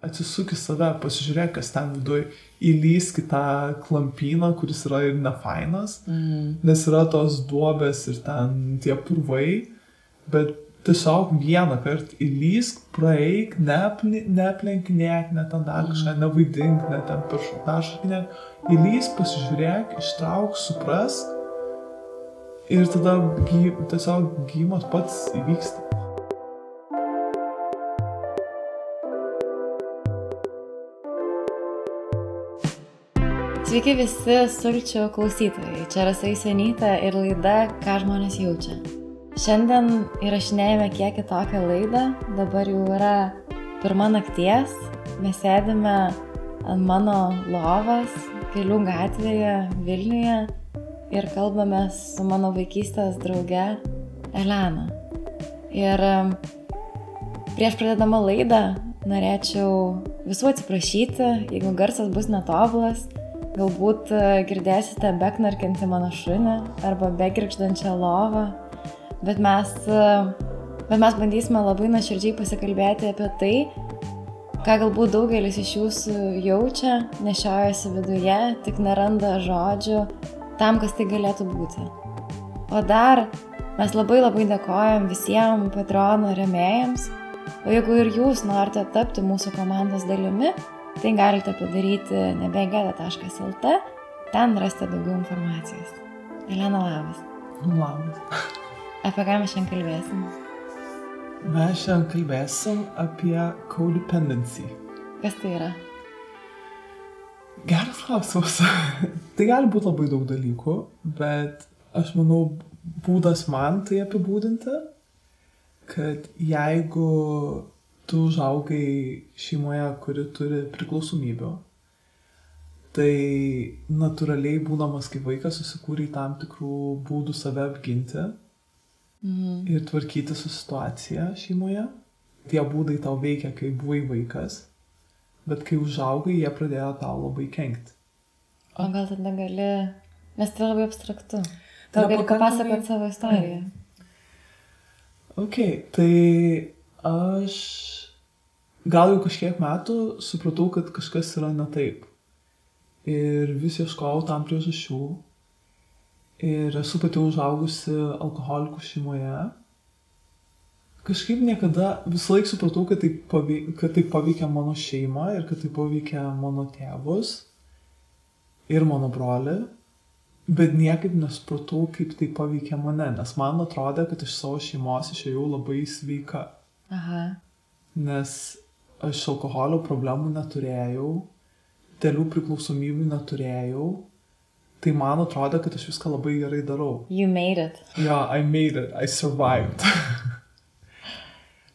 atsisuk į save, pasižiūrėk, kas ten viduj, įlysk į tą klampyną, kuris yra ir nefainas, nes yra tos duobės ir ten tie purvai, bet tiesiog vieną kartą įlysk, praeik, neaplenkinėk, net ten dar kažką, nevaidink, net ten peršokinėk, įlysk, pasižiūrėk, ištrauk, suprask ir tada tiesiog gyjimas pats įvyksta. Sveiki visi sulčių klausytojai, čia Rasa Jusionytė ir laida Ką žmonės jaučia. Šiandien įrašinėjame kiek kitokią laidą, dabar jau yra 1 nakties, mes sėdime ant mano lovos Kelių gatvėje Vilniuje ir kalbame su mano vaikystės drauge Elena. Ir prieš pradėdama laidą norėčiau visų atsiprašyti, jeigu garsas bus netobulas. Galbūt girdėsite beknarkiantį mano šunį arba begirgždančią lovą, bet mes bandysime labai nuoširdžiai pasikalbėti apie tai, ką galbūt daugelis iš jūsų jaučia, nešiojasi viduje, tik neranda žodžių tam, kas tai galėtų būti. O dar mes labai dėkojam visiems Patreono rėmėjams, o jeigu ir jūs norite tapti mūsų komandos dalimi, tai galite padaryti nebegeda.lt, ten rasite daugiau informacijos. Elena, labas. Labas. Apie ką mes šiandien kalbėsim? Mes šiandien kalbėsim apie codependency. Kas tai yra? Geras klausimas. Tai gali būti labai daug dalykų, bet aš manau, būdas man tai apibūdinti, kad jeigu tu užaugai šeimoje, kuri turi priklausomybių, tai natūraliai būdamas kaip vaikas susikūrei tam tikrų būdų save apginti ir tvarkyti su situacija šeimoje. Tie būdai tau veikia, kai buvai vaikas, bet kai užaugai, jie pradėjo tau labai kenkti. O gal tada gali, nes tai labai abstraktu. Gal gali papasakoti savo istoriją? Ok, tai aš gal jau kažkiek metų supratau, kad kažkas yra ne taip. Ir vis ieškojau tam priežasčių. Ir esu pati užaugusi alkoholikų šeimoje. Kažkaip niekada visą laiką supratau, kad tai paveikia mano šeimą ir kad tai paveikia mano tėvus ir mano brolį. Bet niekaip nesupratau, kaip tai paveikia mane, nes man atrodė, kad iš savo šeimos išėjau labai sveika. Aha. Nes aš alkoholio problemų neturėjau, dėlių priklausomybių neturėjau, tai man atrodė, kad aš viską labai gerai darau. You made it. Yeah, I made it, I survived.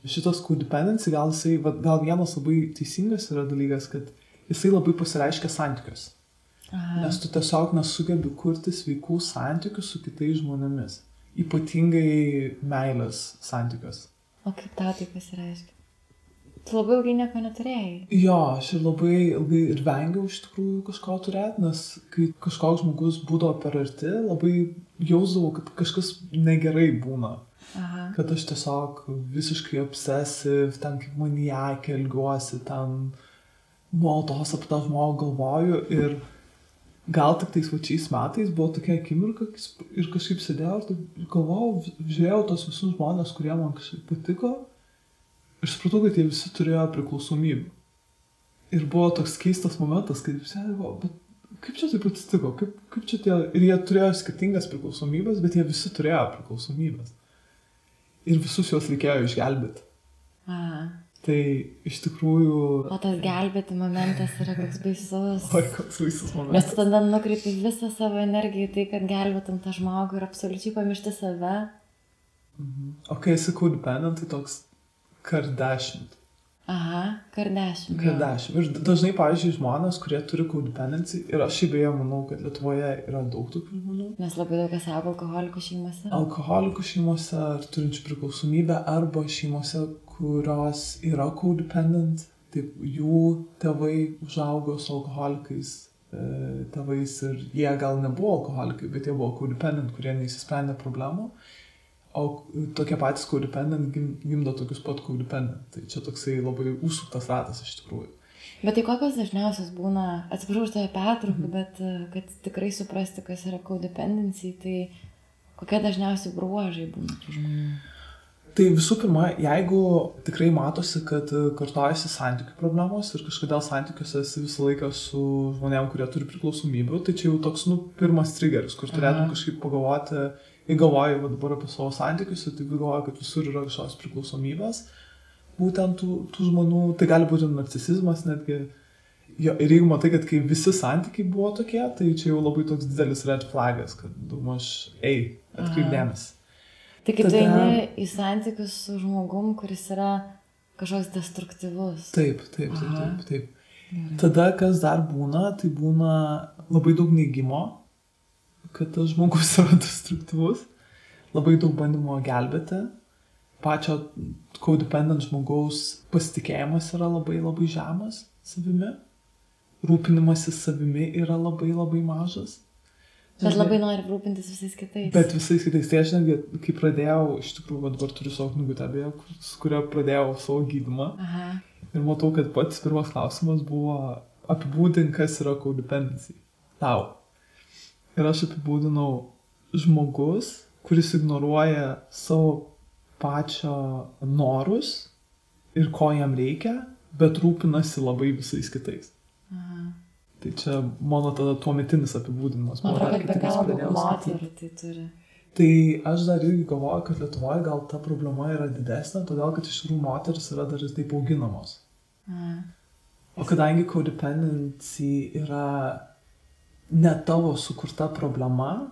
Šitas codependency, gal vienas labai teisingas yra dalykas, kad jisai labai pasireiškia santykius. Aha. Nes tu tiesiog nesugebi kurti sveikų santykių su kitais žmonėmis. Ypatingai meilės santykius. O kaip tau tai pasireiškia? Tu labai ilgai nieko neturėjai. Jo, aš ir labai ilgai ir vengiau iš tikrųjų kažko turėti, nes kai kažkoks žmogus būdavo per arti, labai jausdavau, kad kažkas negerai būna. Aha. Kad aš tiesiog visiškai obsesiv, ten kaip maniakė elgiuosi, ten nuolatos apie tą žmogų galvoju ir gal tik tais vačiais metais buvo tokia akimirka ir kažkaip sėdėjau ir galvojau, žiūrėjau tos visus žmonės, kurie man kažkaip patiko ir supratau, kad jie visi turėjo priklausomybę. Ir buvo toks keistas momentas, kai sėdėjau, bet kaip čia taip atsitiko, kaip čia tie, ir jie turėjo skirtingas priklausomybės, bet jie visi turėjo priklausomybės. Ir visus juos reikėjo išgelbėti. Aha. Tai iš tikrųjų... O tas gelbėti momentas yra koks baisus. Oi, koks baisus momentas. Nes tu tada nukreipi visą savo energiją į tai, kad gelbėtum tą žmogų ir absoliučiai pamiršti save. O kai esi codependent, tai toks Kardashian. Aha, Kardashian. Kardashian. Ir dažnai, pavyzdžiui, žmonės, kurie turi codependency, ir aš šiaip beje manau, kad Lietuvoje yra daug tokių žmonių. Nes labai daug kas auga alkoholikų šeimose. Alkoholikų šeimose, ar turinčių priklausomybę, arba šeimose, kurios yra codependent, taip jų tėvai užaugo su alkoholikais tėvais ir jie gal nebuvo alkoholikai, bet jie buvo codependent, kurie neįsisprendė problemų. O tokie patys codependent gimdo tokius pat codependent. Tai čia toksai labai užsuktas ratas iš tikrųjų. Bet tai kokios dažniausios būna, atsiprašau už tave pertrauką, bet kad tikrai suprasti, kas yra codependency, tai kokie dažniausiai bruožai būna tų žmonių? Tai visų pirma, jeigu tikrai matosi, kad kartojasi santykių problemos ir kažkodėl santykiuose esi visą laiką su žmonėm, kurie turi priklausomybių, tai čia jau toks, pirmas triggeris, kur turėtum kažkaip pagalvoti, galvoju dabar apie savo santykius ir tai galvoju, kad visur yra kažkokios priklausomybės. Būtent tų žmonių, tai gali būti narcisizmas netgi. Jo, ir jeigu matai, kad kai visi santykiai buvo tokie, tai čia jau labai toks didelis red flagas, kad daugmaž, atkreip dėmesį. Tai kai tu eini į santykius su žmogum, kuris yra kažkoks destruktyvus. Taip. Tada, kas dar būna, tai būna labai daug neigimo, kad tas žmogus yra destruktyvus, labai daug bandymo gelbėti. Pačio codependent žmogaus pasitikėjimas yra labai labai žemas savimi, rūpinimasis savimi yra labai labai mažas. Bet labai nori rūpintis visais kitais. Bet visais kitais. Tai aš netgi, kai pradėjau, iš tikrųjų, dabar turiu savo knygutę, su kuria pradėjau savo gydymą. Aha. Ir matau, kad pats pirmas klausimas buvo apibūdink, kas yra codependency. Tau. Ir aš apibūdinau žmogus, kuris ignoruoja savo pačio norus ir ko jam reikia, bet rūpinasi labai visais kitais. Aha. Tai čia mano tada tuometinis apibūdinimas. Man atrodo, kad be galo daug moterų tai turi. Tai aš dar irgi galvoju, kad Lietuvoje gal ta problema yra didesnė, todėl kad iš tikrųjų moteris yra dar ir taip auginamos. Aha. O kadangi codependency yra ne tavo sukurta problema,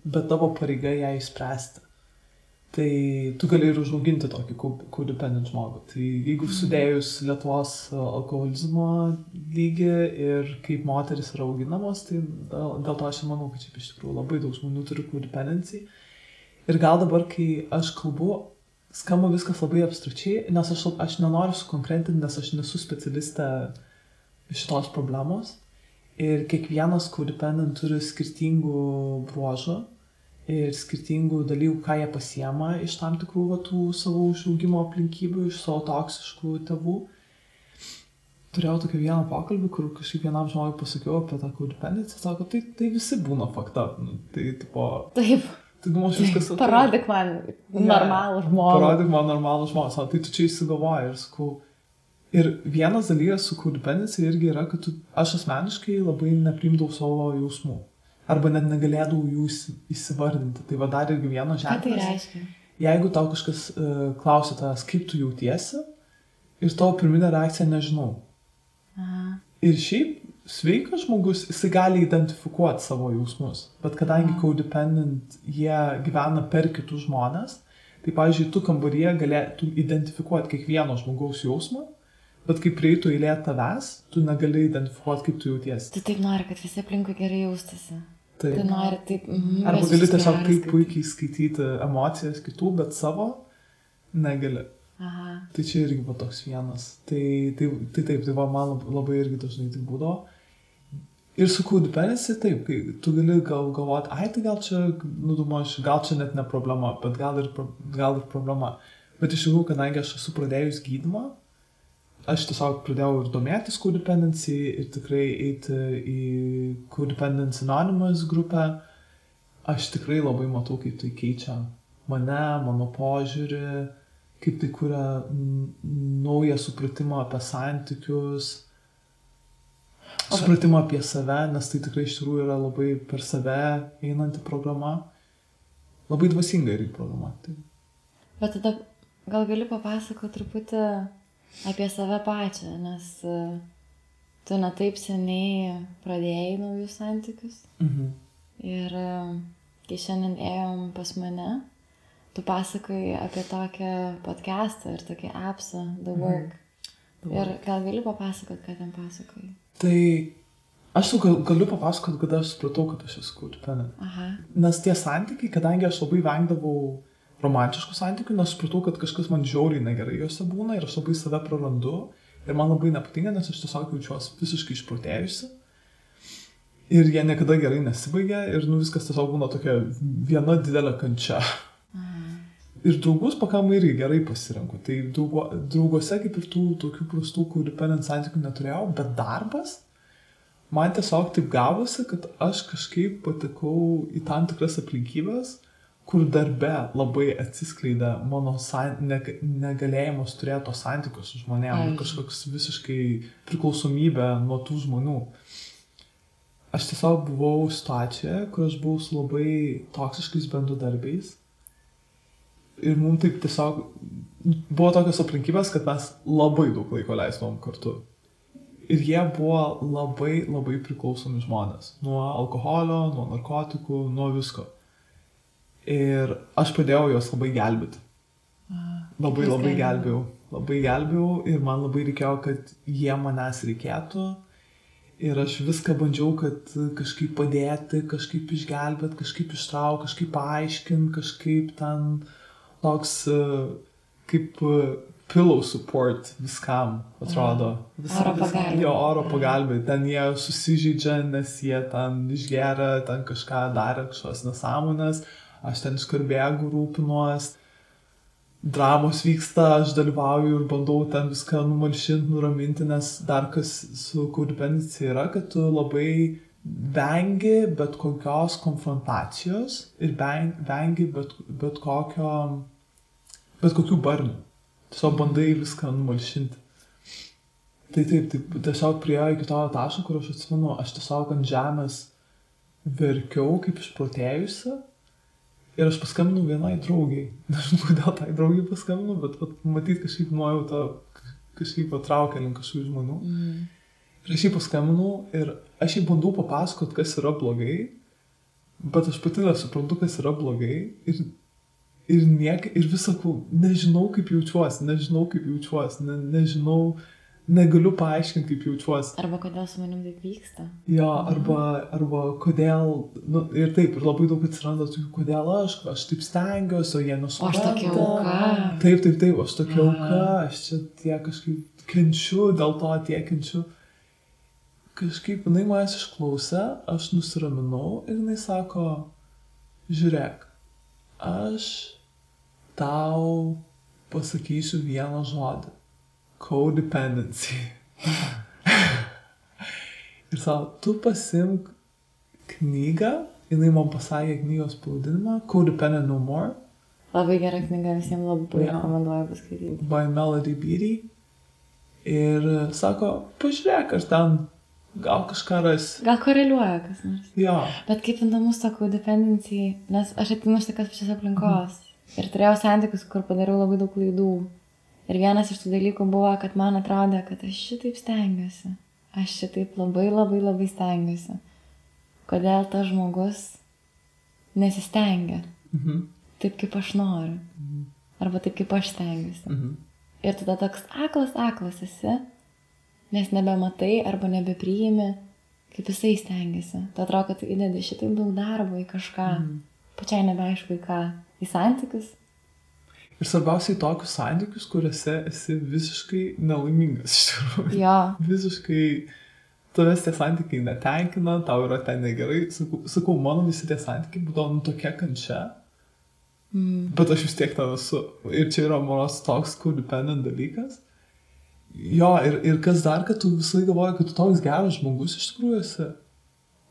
bet tavo pareiga ją išspręsti. Tai tu gali ir užauginti tokį codependent žmogų. Tai jeigu sudėjus Lietuvos alkoholizmo lygį ir kaip moteris yra auginamos, tai dėl to aš manau, kad čia iš tikrųjų labai daug žmonių turi codependency. Ir gal dabar, kai aš kalbu, skamba viskas labai abstrakčiai, nes aš nenoriu sukonkretinti, nes aš nesu specialistė šitos problemos. Ir kiekvienas codependent turi skirtingų bruožų ir skirtingų dalykų, ką jie pasiema iš tam tikrų tų savo užaugimo aplinkybių, iš savo toksiškų tėvų. Turėjau tokį vieną pokalbį, kur kažkaip vienam žmogui pasakiau apie tą codependency, sako, tai visi būna fucked up. Tai tipo... Taip. Tai viskas okay. Parodyk man normalų žmogų. Parodyk man normalų žmogų. Sako, tai tu čia įsigalvoji ir sakau. Ir vienas dalykas su codependency irgi yra, kad aš asmeniškai labai nepriimdavau savo jausmų. Arba net negalėdavau jų įsivardinti. Tai va dar irgi vieno ženklas. Ką tai reiškia? Jeigu tau kažkas klausia tavęs, kaip tu jautiesi, ir tavo pirminė reakcija nežinau. Aha. Ir šiaip sveikas žmogus, jisai gali identifikuoti savo jausmus. Bet kadangi codependent jie gyvena per kitus žmonės, tai pavyzdžiui, tu kambaryje galėtum identifikuoti kiekvieno žmogaus jausmą, bet kai prieitų eilė tavęs, tu negali identifikuoti, kaip tu jautiesi. Tu taip nori, kad visi aplinkui gerai jaustasi. Taip. Tu nori taip... Arba gali tiesiog taip puikiai skaityti emocijas kitų, bet savo negali. Aha. Tai čia irgi buvo toks vienas. Tai taip, tai va, man labai irgi dažnai tai būdavo. Ir su codependency taip, kai tu gali galvoti, tai gal čia, gal čia net ne problema, bet gal ir problema. Bet iš tikrųjų, kadangi aš esu pradėjus gydymą, aš tiesiog pradėjau ir domėtis codependency ir tikrai eiti į Codependency Anonymous grupę. Aš tikrai labai matau, kaip tai keičia mane, mano požiūrį, kaip tai kuria naują supratimą apie santykius, supratimą apie save, nes tai tikrai iš tikrųjų yra labai per save einanti programa. Labai dvasinga irgi programa. Tai. Bet tada gal gali papasakoti truputį apie save pačią, nes tu ne taip seniai pradėjai naujus santykius. Mhm. Ir kai šiandien ėjom pas mane, tu pasakoji apie tokią podcastą ir tokį appsą, The Work. Ir gal gali papasakoti, ką ten pasakoji? Tai aš galiu papasakoti, kada aš supratau, kad aš esu codependent. Aha. Nes tie santykiai, kadangi aš labai vengdavau romantiškų santykių, nes supratau, kad kažkas man žiauriai negerai juose būna ir aš labai save prarandu ir man labai nepatinka, nes aš tiesiog jaučiuosi visiškai išprotėjusi ir jie niekada gerai nesibaigia ir viskas tiesiog būna tokia viena didelė kančia. Aha. Ir draugus pakankamai irgi gerai pasirenku. Tai drauguose kaip ir tų tokių prastų codependent santykių neturėjau, bet darbas man tiesiog taip gavosi, kad aš kažkaip patekau į tam tikras aplinkybės, kur darbe labai atsiskleidė mano negalėjimas turėti to santykius su žmonėm, kažkoks visiškai priklausomybė nuo tų žmonių. Aš tiesiog buvau situacijoje, kur aš buvau su labai toksiškais bendradarbiais. Ir mums taip tiesiog buvo tokios aplinkybės, kad mes labai daug laiko leisdavom kartu. Ir jie buvo labai, labai priklausomi žmonės. Nuo alkoholio, nuo narkotikų, nuo visko. Ir aš padėjau juos labai gelbėti. Labai gelbėjau. Labai gelbėjau ir man labai reikėjo, kad jie manęs reikėtų. Ir aš viską bandžiau, kad kažkaip padėti, kažkaip išgelbėti, kažkaip ištraukti, kažkaip paaiškinti, kažkaip ten toks kaip pillow support viskam, atrodo. Oro pagalbė. Jo, oro pagalbė. Ten jie susižeidžia, nes jie ten išgeria, ten kažką darė, kažkokios nesąmonės. Aš ten iškarbėgu, rūpinuos. Dramos vyksta, aš dalyvauju ir bandau ten viską numalšinti, nuraminti, nes dar kas su codependencija yra, kad tu labai vengi bet kokios konfrontacijos ir vengi bet kokių barnių. Tiesiog bandai viską numalšinti. Tai taip, tiesiog priėjo iki to taško, kur aš atsimenu, aš tiesiog ant žemės verkiau kaip išprotėjusi ir aš paskambinau vienai draugiai. Nežinau, kodėl tai draugiai paskambinau, bet matyt kažkaip nuojauta kažkaip patraukė link kažkokių žmonių. Ir aš jį paskambinau ir aš jį bandau papasakot, kas yra blogai, bet aš pati nesuprantu, kas yra blogai ir vis sakau, nežinau, kaip jaučiuosi, nežinau, negaliu paaiškinti, kaip jaučiuosi. Arba kodėl su manim taip vyksta. Jo, arba kodėl, ir taip, ir labai daug atsiranda tokių, kodėl aš taip stengiuosi, o jie nesupranta. Aš tokia auka. Taip, aš tokia auka, aš čia tiek kažkaip kenčiu, dėl to tiek kenčiu. Kažkaip jinai manęs išklausė, aš nusiraminau ir jinai sako, žiūrėk, aš tau pasakysiu vieną žodį. Codependency. Ir savo, tu pasimk knygą, jinai man pasakė knygos pavadinimą, Codependent No More. Labai gera knyga, visiems labai rekomenduoju paskaityti. By Melody Beatty. Ir sako, pažiūrėk, aš ten gal kažką rasi. Gal koreliuoja kas nors. Jo. Bet kaip įdomus ta codependency, nes aš atinu iš tokios pačios aplinkos. Ir turėjau santykius, kur padariau labai daug klaidų. Ir vienas iš tų dalykų buvo, kad man atrodė, kad aš šitaip stengiuosi. Aš šitaip labai stengiuosi. Kodėl tas žmogus nesistengia? Taip, kaip aš noriu. Arba taip, kaip aš stengiuosi. Ir tada toks aklas esi, nes nebematai arba nebepriimi, kaip jisai stengiasi. Tu atrodo, kad tu įdedi šitaip daug darbo į kažką. Pačiai nebeaišku į ką. Į santykius. Ir svarbiausiai tokius santykius, kuriuose esi visiškai nelaimingas, iš tikrųjų. Jo. Visiškai tavęs tie santykiai netenkina, tau yra ten negerai. Sakau, mano visi tie santykiai būdavo tokia kančia, bet aš vis tiek ten esu. Ir čia yra mano toks codependent dalykas. Jo, ir kas dar, kad tu visai galvoji, kad tu toks geras žmogus iš tikrųjų esi.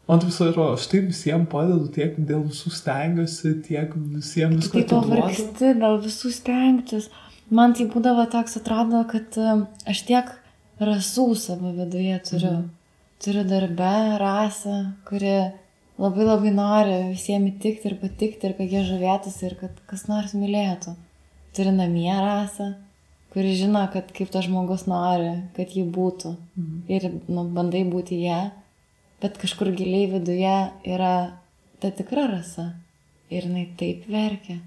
Man tai visai atrodo, aš taip visiems padedu, tiek dėl visų stengiuosi, tiek visiems visko atiduodu. Tu taip pavargsti dėl visų stengtis. Man tai būdavo toks atrodo, kad aš tiek rasų savo viduje turiu. Turiu darbę rasą, kuri labai nori visiems įtikti ir patikti ir kad jie žavėtųsi ir kad kas nors mylėtų. Turiu namie rasą, kuri žino, kad kaip tas žmogus nori, kad jį būtų. Ir bandai būti ją. Bet kažkur giliai viduje yra ta tikra rasa. Ir jinai taip verkia.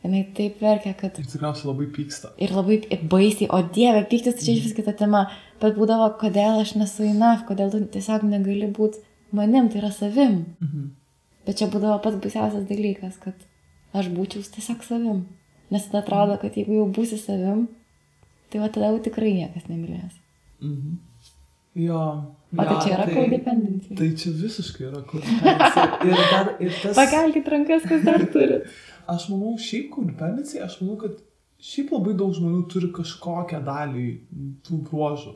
Kad... Ir tikriausiai labai pyksta. Ir labai baisiai. O Dieve, pyktis tai čia iš vis kita tema. Bet būdavo, kodėl aš nesu enough, kodėl tu tiesiog negali būti manim, tai yra savim. Bet čia būdavo pats baisiausias dalykas, kad aš būčiau tiesiog savim. Nes tada atrodo, kad jeigu jau būsi savim, tai va tada jau tikrai niekas nemylės. Jo. O tai čia yra codependency. Tai čia visiškai yra codependency. Ir tas... Pakelkit rankas, kas dar turi. Aš manau, šiaip codependency, aš manau, kad šiaip labai daug žmonių turi kažkokią dalį tų bruožų.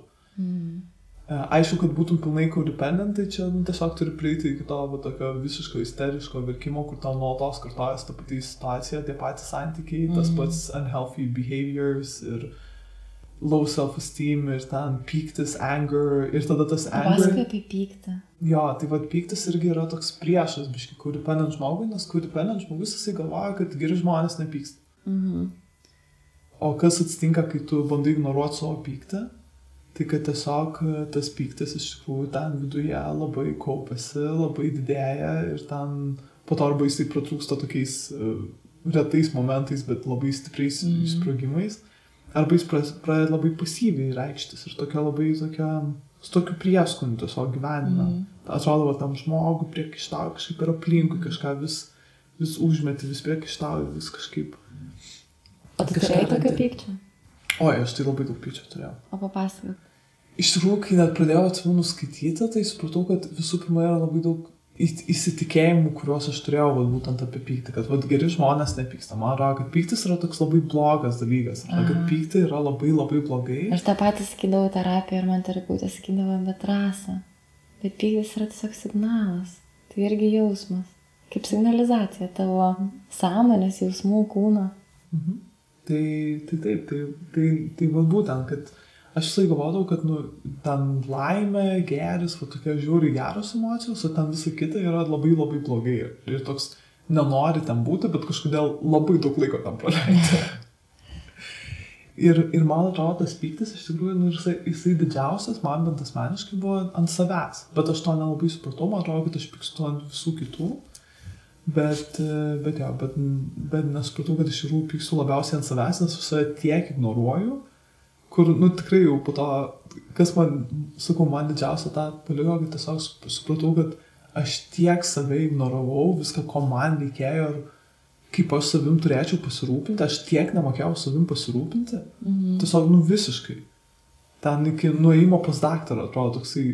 Aišku, kad būtum pilnai codependent, tai čia tiesiog turi prieiti iki to tokio visiško isteriško verkimo, kur tau nuolatos kartojas ta pati situacija, tie patys santykiai, tas pats unhealthy behaviors ir low self-esteem ir ten pyktis, anger ir tada tas anger. Pasakai apie pyktį. Jo, tai pyktis irgi yra toks priešas, biški, codependent žmogui, nes codependent žmogus jisai galvoja, kad geri žmonės nepyksta. O kas atsitinka, kai tu bandai ignoruoti savo pyktį, tai kad tiesiog tas pyktis iš tikrųjų ten viduje labai kaupiasi, labai didėja ir ten po to arba jisai pratrūksta tokiais retais momentais, bet labai stipriais sprogimais. Arba jis pradeda labai pasyviai reikštis ir su tokiu prieskoniu tiesiog gyvenime. Atrodo, tam žmogui priekaištauja kažkaip ir aplinkui, kažką vis užmeti, vis priekaištauja, vis kažkaip. O tu turėjai tokio pykčio? Oi, aš tai labai daug pykčio turėjau. O papasakot. Iš tikrųjų, kai net pradėjau atsimenu skaityti, tai supratau, kad visų pirma yra labai daug įsitikėjimų, kuriuos aš turėjau būtent apie pyktį, kad geri žmonės nepyksta. Man atrodo, kad pyktis yra toks labai blogas dalykas. Kad pykti yra labai labai blogai. Aš tą patį sakydavau terapiją ir man terapeutė sakydavo, bet Rasa, bet pyktis yra tiesiog signalas. Tai irgi jausmas. Kaip signalizacija tavo sąmonės, jausmų, kūno. Tai taip, tai būtent, kad aš visai galvodavau, kad ten laimė, geris, tokia žiūri geros emocijos, o ten visa kita yra labai labai blogai. Ir toks nenori ten būti, bet kažkodėl labai daug laiko tam praleidžia. ir man atrodo, tas pyktis iš tikrųjų, jisai didžiausias, man bent asmeniškai buvo ant savęs. Bet aš to nelabai supratau, man atrodo, kad aš pykstu ant visų kitų. Bet nesupratau, kad iš tikrųjų pykstu labiausiai ant savęs, nes visą tiek ignoruoju. Kur, tikrai jau po to, kas man didžiausia tą paliko, kad tiesiog supratau, kad aš tiek save ignoravau, viską, ko man reikėjo ir kaip aš savim turėčiau pasirūpinti, aš tiek nemokėjau savim pasirūpinti, tiesiog, visiškai. Ten iki nuėjimo pas daktarą, atrodo, toksai,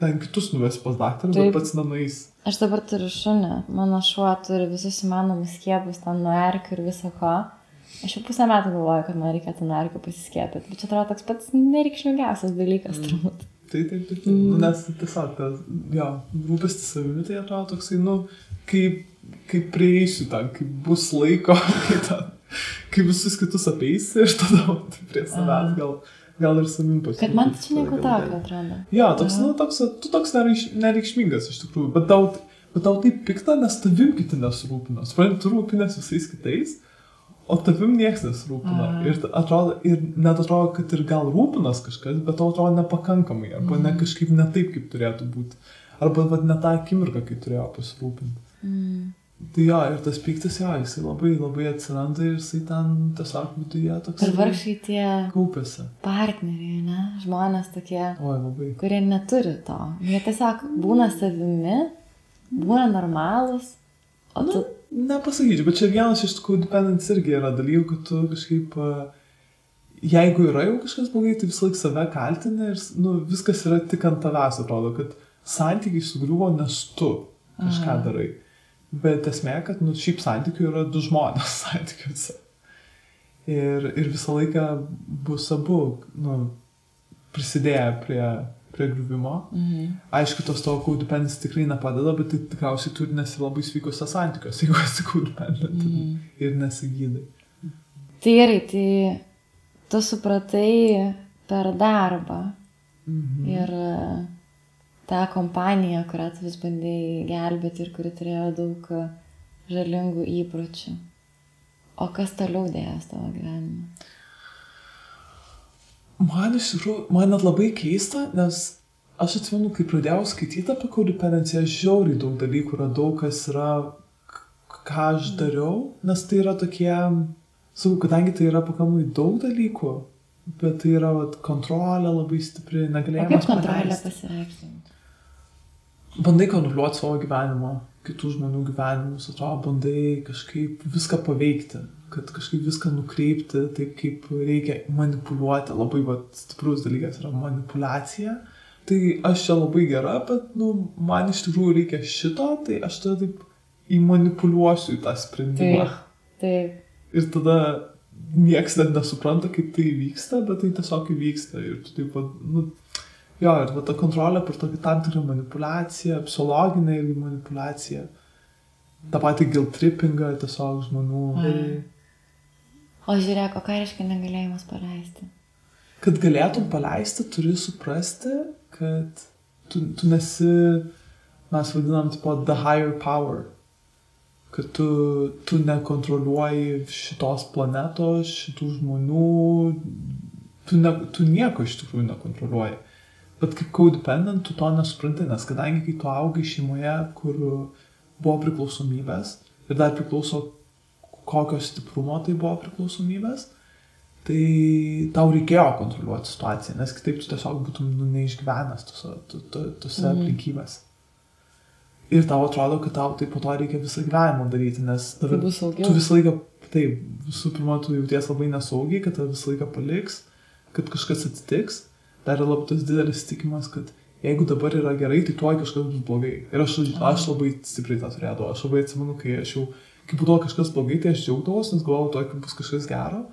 ten kitus nuvesi pas daktarą, bet pats nenueis. Aš dabar turiu šunį, mano šuo turi visus įmanomus skiepus, ten nuo erkių ir viso ko. Aš jau pusę metų galvoju, kad man reikėtų nuo erkių pasiskiepyti, bet čia atrodo toks pats nereikšmingiausias dalykas, turbūt. Taip. Nes tiesiog, rūpestis savimi, tai atrodo toksai, kaip prieisiu ten, kaip bus laiko, kai visus kitus apeisi ir tada prie savęs gal ir savim pasirūpinti. Kad man čia nieko tokio atrodo. Jo, tu toks nereikšmingas iš tikrųjų, bet tau taip pikta, nes tavim kiti nesirūpina. Supranti, tu rūpinės visais kitais, o tavim nieks nesirūpina. Ir net atrodo, kad ir gal rūpinas kažkas, bet tau atrodo nepakankamai, arba ne kažkaip ne taip, kaip turėtų būti. Arba ne tą akimirką, kai turėjo pasirūpinti. Tai ir tas pyktis, jisai labai labai atsiranda ir jisai ten tiesiog viduje toks... Ir vargšai tie kaupiasi. Partneriai, ne? Žmonės tokie, kurie neturi to. Jie tiesiog būna savimi, būna normalūs, o tu... Nepasakyčiau, bet čia vienas iš tikrųjų dependence irgi yra dalykų, kad tu kažkaip, jeigu yra jau kažkas blogai, tai visą laik save kaltini ir viskas yra tik ant tavęs, atrodo, kad santykiai sugriuvo, nes tu kažką darai. Bet esmė, kad šiaip santykių yra du žmonės santykiuose. Ir visą laiką bus abu prisidėję prie griuvimo. Aišku, tos tavo codependency tikrai nepadeda, bet tai tikriausiai turi nesi labai sveikose santykiuose, jeigu esi codependent ir nesigydai. Tai gerai, tai tu supratai per darbą ir tą kompaniją, kurią tu vis bandėjai gelbėti ir kuri turėjo daug žalingų įpročių. O kas toliau dėjęs tavo gyvenime? Man iš tikrųjų, man net labai keista, nes aš atsimenu, kai pradėjau skaityti apie codependenciją, žiauriai daug dalykų radau, kas yra, ką aš dariau, nes tai yra tokie, kadangi tai yra pakankamai daug dalykų, bet tai yra kontrolė labai stipri, negalėjimas paleisti. O kaip kontrolė pasireikšti? Bandai kontroliuoti savo gyvenimą, kitų žmonių gyvenimus, atrodo, bandai kažkaip viską paveikti, kad kažkaip viską nukreipti taip, kaip reikia manipuliuoti. Labai stiprus dalykas yra manipulacija, tai aš čia labai gera, bet, man iš tikrųjų reikia šito, tai aš tada taip įmanipuliuosiu į tą sprendimą. Taip. Ir tada nieks net nesupranta, kaip tai vyksta, bet tai tiesiog įvyksta. Ir tu taip, ir ta kontrolė per tokį tam tikrą manipulaciją, psichologinę irgi manipulaciją, tą patį guilt trippingą tiesiog žmonių. O žiūrėk, o ką reiškia negalėjimas paleisti? Kad galėtum paleisti, turi suprasti, kad tu nesi, mes vadinam, the higher power. Kad tu nekontroliuoji šitos planetos, šitų žmonių, tu nieko iš tikrųjų nekontroliuoji. Bet kaip codependent, tu to nesupranti, nes kadangi kai tu augai šeimoje, kur buvo priklausomybės, ir dar priklauso, kokio stiprumo tai buvo priklausomybės, tai tau reikėjo kontroliuoti situaciją, nes kitaip tu tiesiog būtum neišgyvenęs tose aplinkybės. Ir tau atrodo, kad tau tai po to reikia visą gyvenimą daryti, nes tu visą laiką, taip, visų pirma, tu jauties labai nesaugiai, kad tave visą laiką paliks, kad kažkas atsitiks. Dar yra labai tas didelis tikimas, kad jeigu dabar yra gerai, tai tuoj kažkas bus blogai. Ir aš labai stipriai tą turėdavau. Aš labai atsimenu, kai būdavo kažkas blogai, tai aš džiaugdavos, nes galvojau, tuoj bus kažkas gero.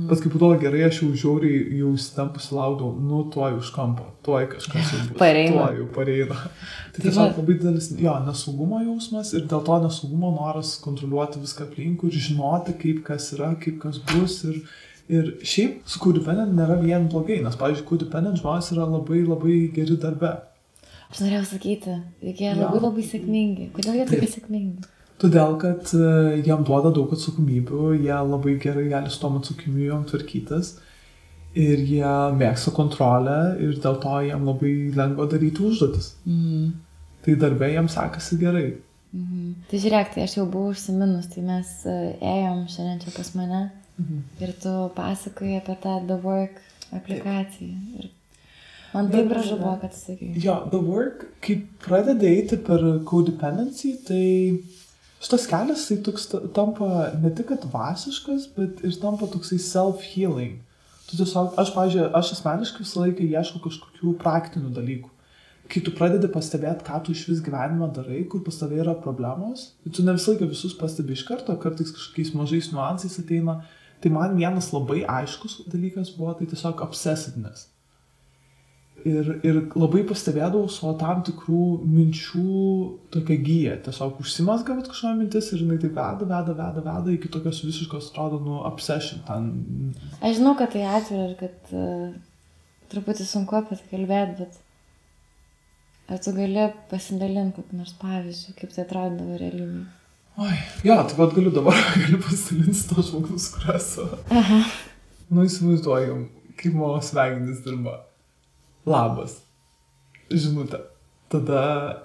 Bet kai būdavo gerai, aš jau žiauriai jau įsitempusi laukdavau, tuoj už kampo, tuoj kažkas jau bus, tuoj jau pareina. Tai tiesiog labai didelis nesaugumo jausmas ir dėl to nesaugumo noras kontroliuoti viską aplinkui ir žinoti, kaip kas yra, kaip kas bus. Ir šiaip su codependent nėra vien blogai, nes, pavyzdžiui, codependent žmonės yra labai labai geri darbe. Aš norėjau sakyti, jie labai labai sėkmingi. Kodėl jie tokie sėkmingi? Todėl, kad jiem duoda daug atsakomybių, jie labai gerai gali su tom atsakomybėm tvarkytis ir jie mėgsta kontrolę ir dėl to jiem labai lengva daryti užduotis. Tai darbė jiem sekasi gerai. Tai žiūrėk, tai aš jau buvau užsiminus, tai mes ėjom šiandien čia pas mane ir tu pasakoji apie tą The Work aplikaciją. Ir man taip gražu buvo, kad tu sakai. Jo, The Work, kai pradedi eiti per codependency, tai šitas kelias tai tampa ne tik dvasiškas, bet ir tampa toksai self-healing. Tu tiesiog, aš asmeniškai visą laiką ieškau kažkokių praktinių dalykų. Kai tu pradedi pastebėti, ką tu iš vis gyvenime darai, kur pas tavai yra problemos, tu ne visą laiką visus pastebi iš karto, kartais kažkokiais mažais niuansais ateina. Tai man vienas labai aiškus dalykas buvo, tai tiesiog obsessiveness. Ir labai pastebėdavau savo tam tikrų minčių tokią giją. Tiesiog užsimazga kažkokia mintis ir jinai taip veda iki tokios visiškos, atrodo, obsession. Aš žinau, kad tai atvira ir kad truputį sunku apie tai kalbėti, bet ar tu gali pasidalinti kokį nors pavyzdžių, kaip tai atrodydavo realybėje? Jo, tai vad galiu pasidalinti to žmogus, kurias. Įsivaizduoju, kaip mano smegenys dirba. Labas. Žinutė. Tada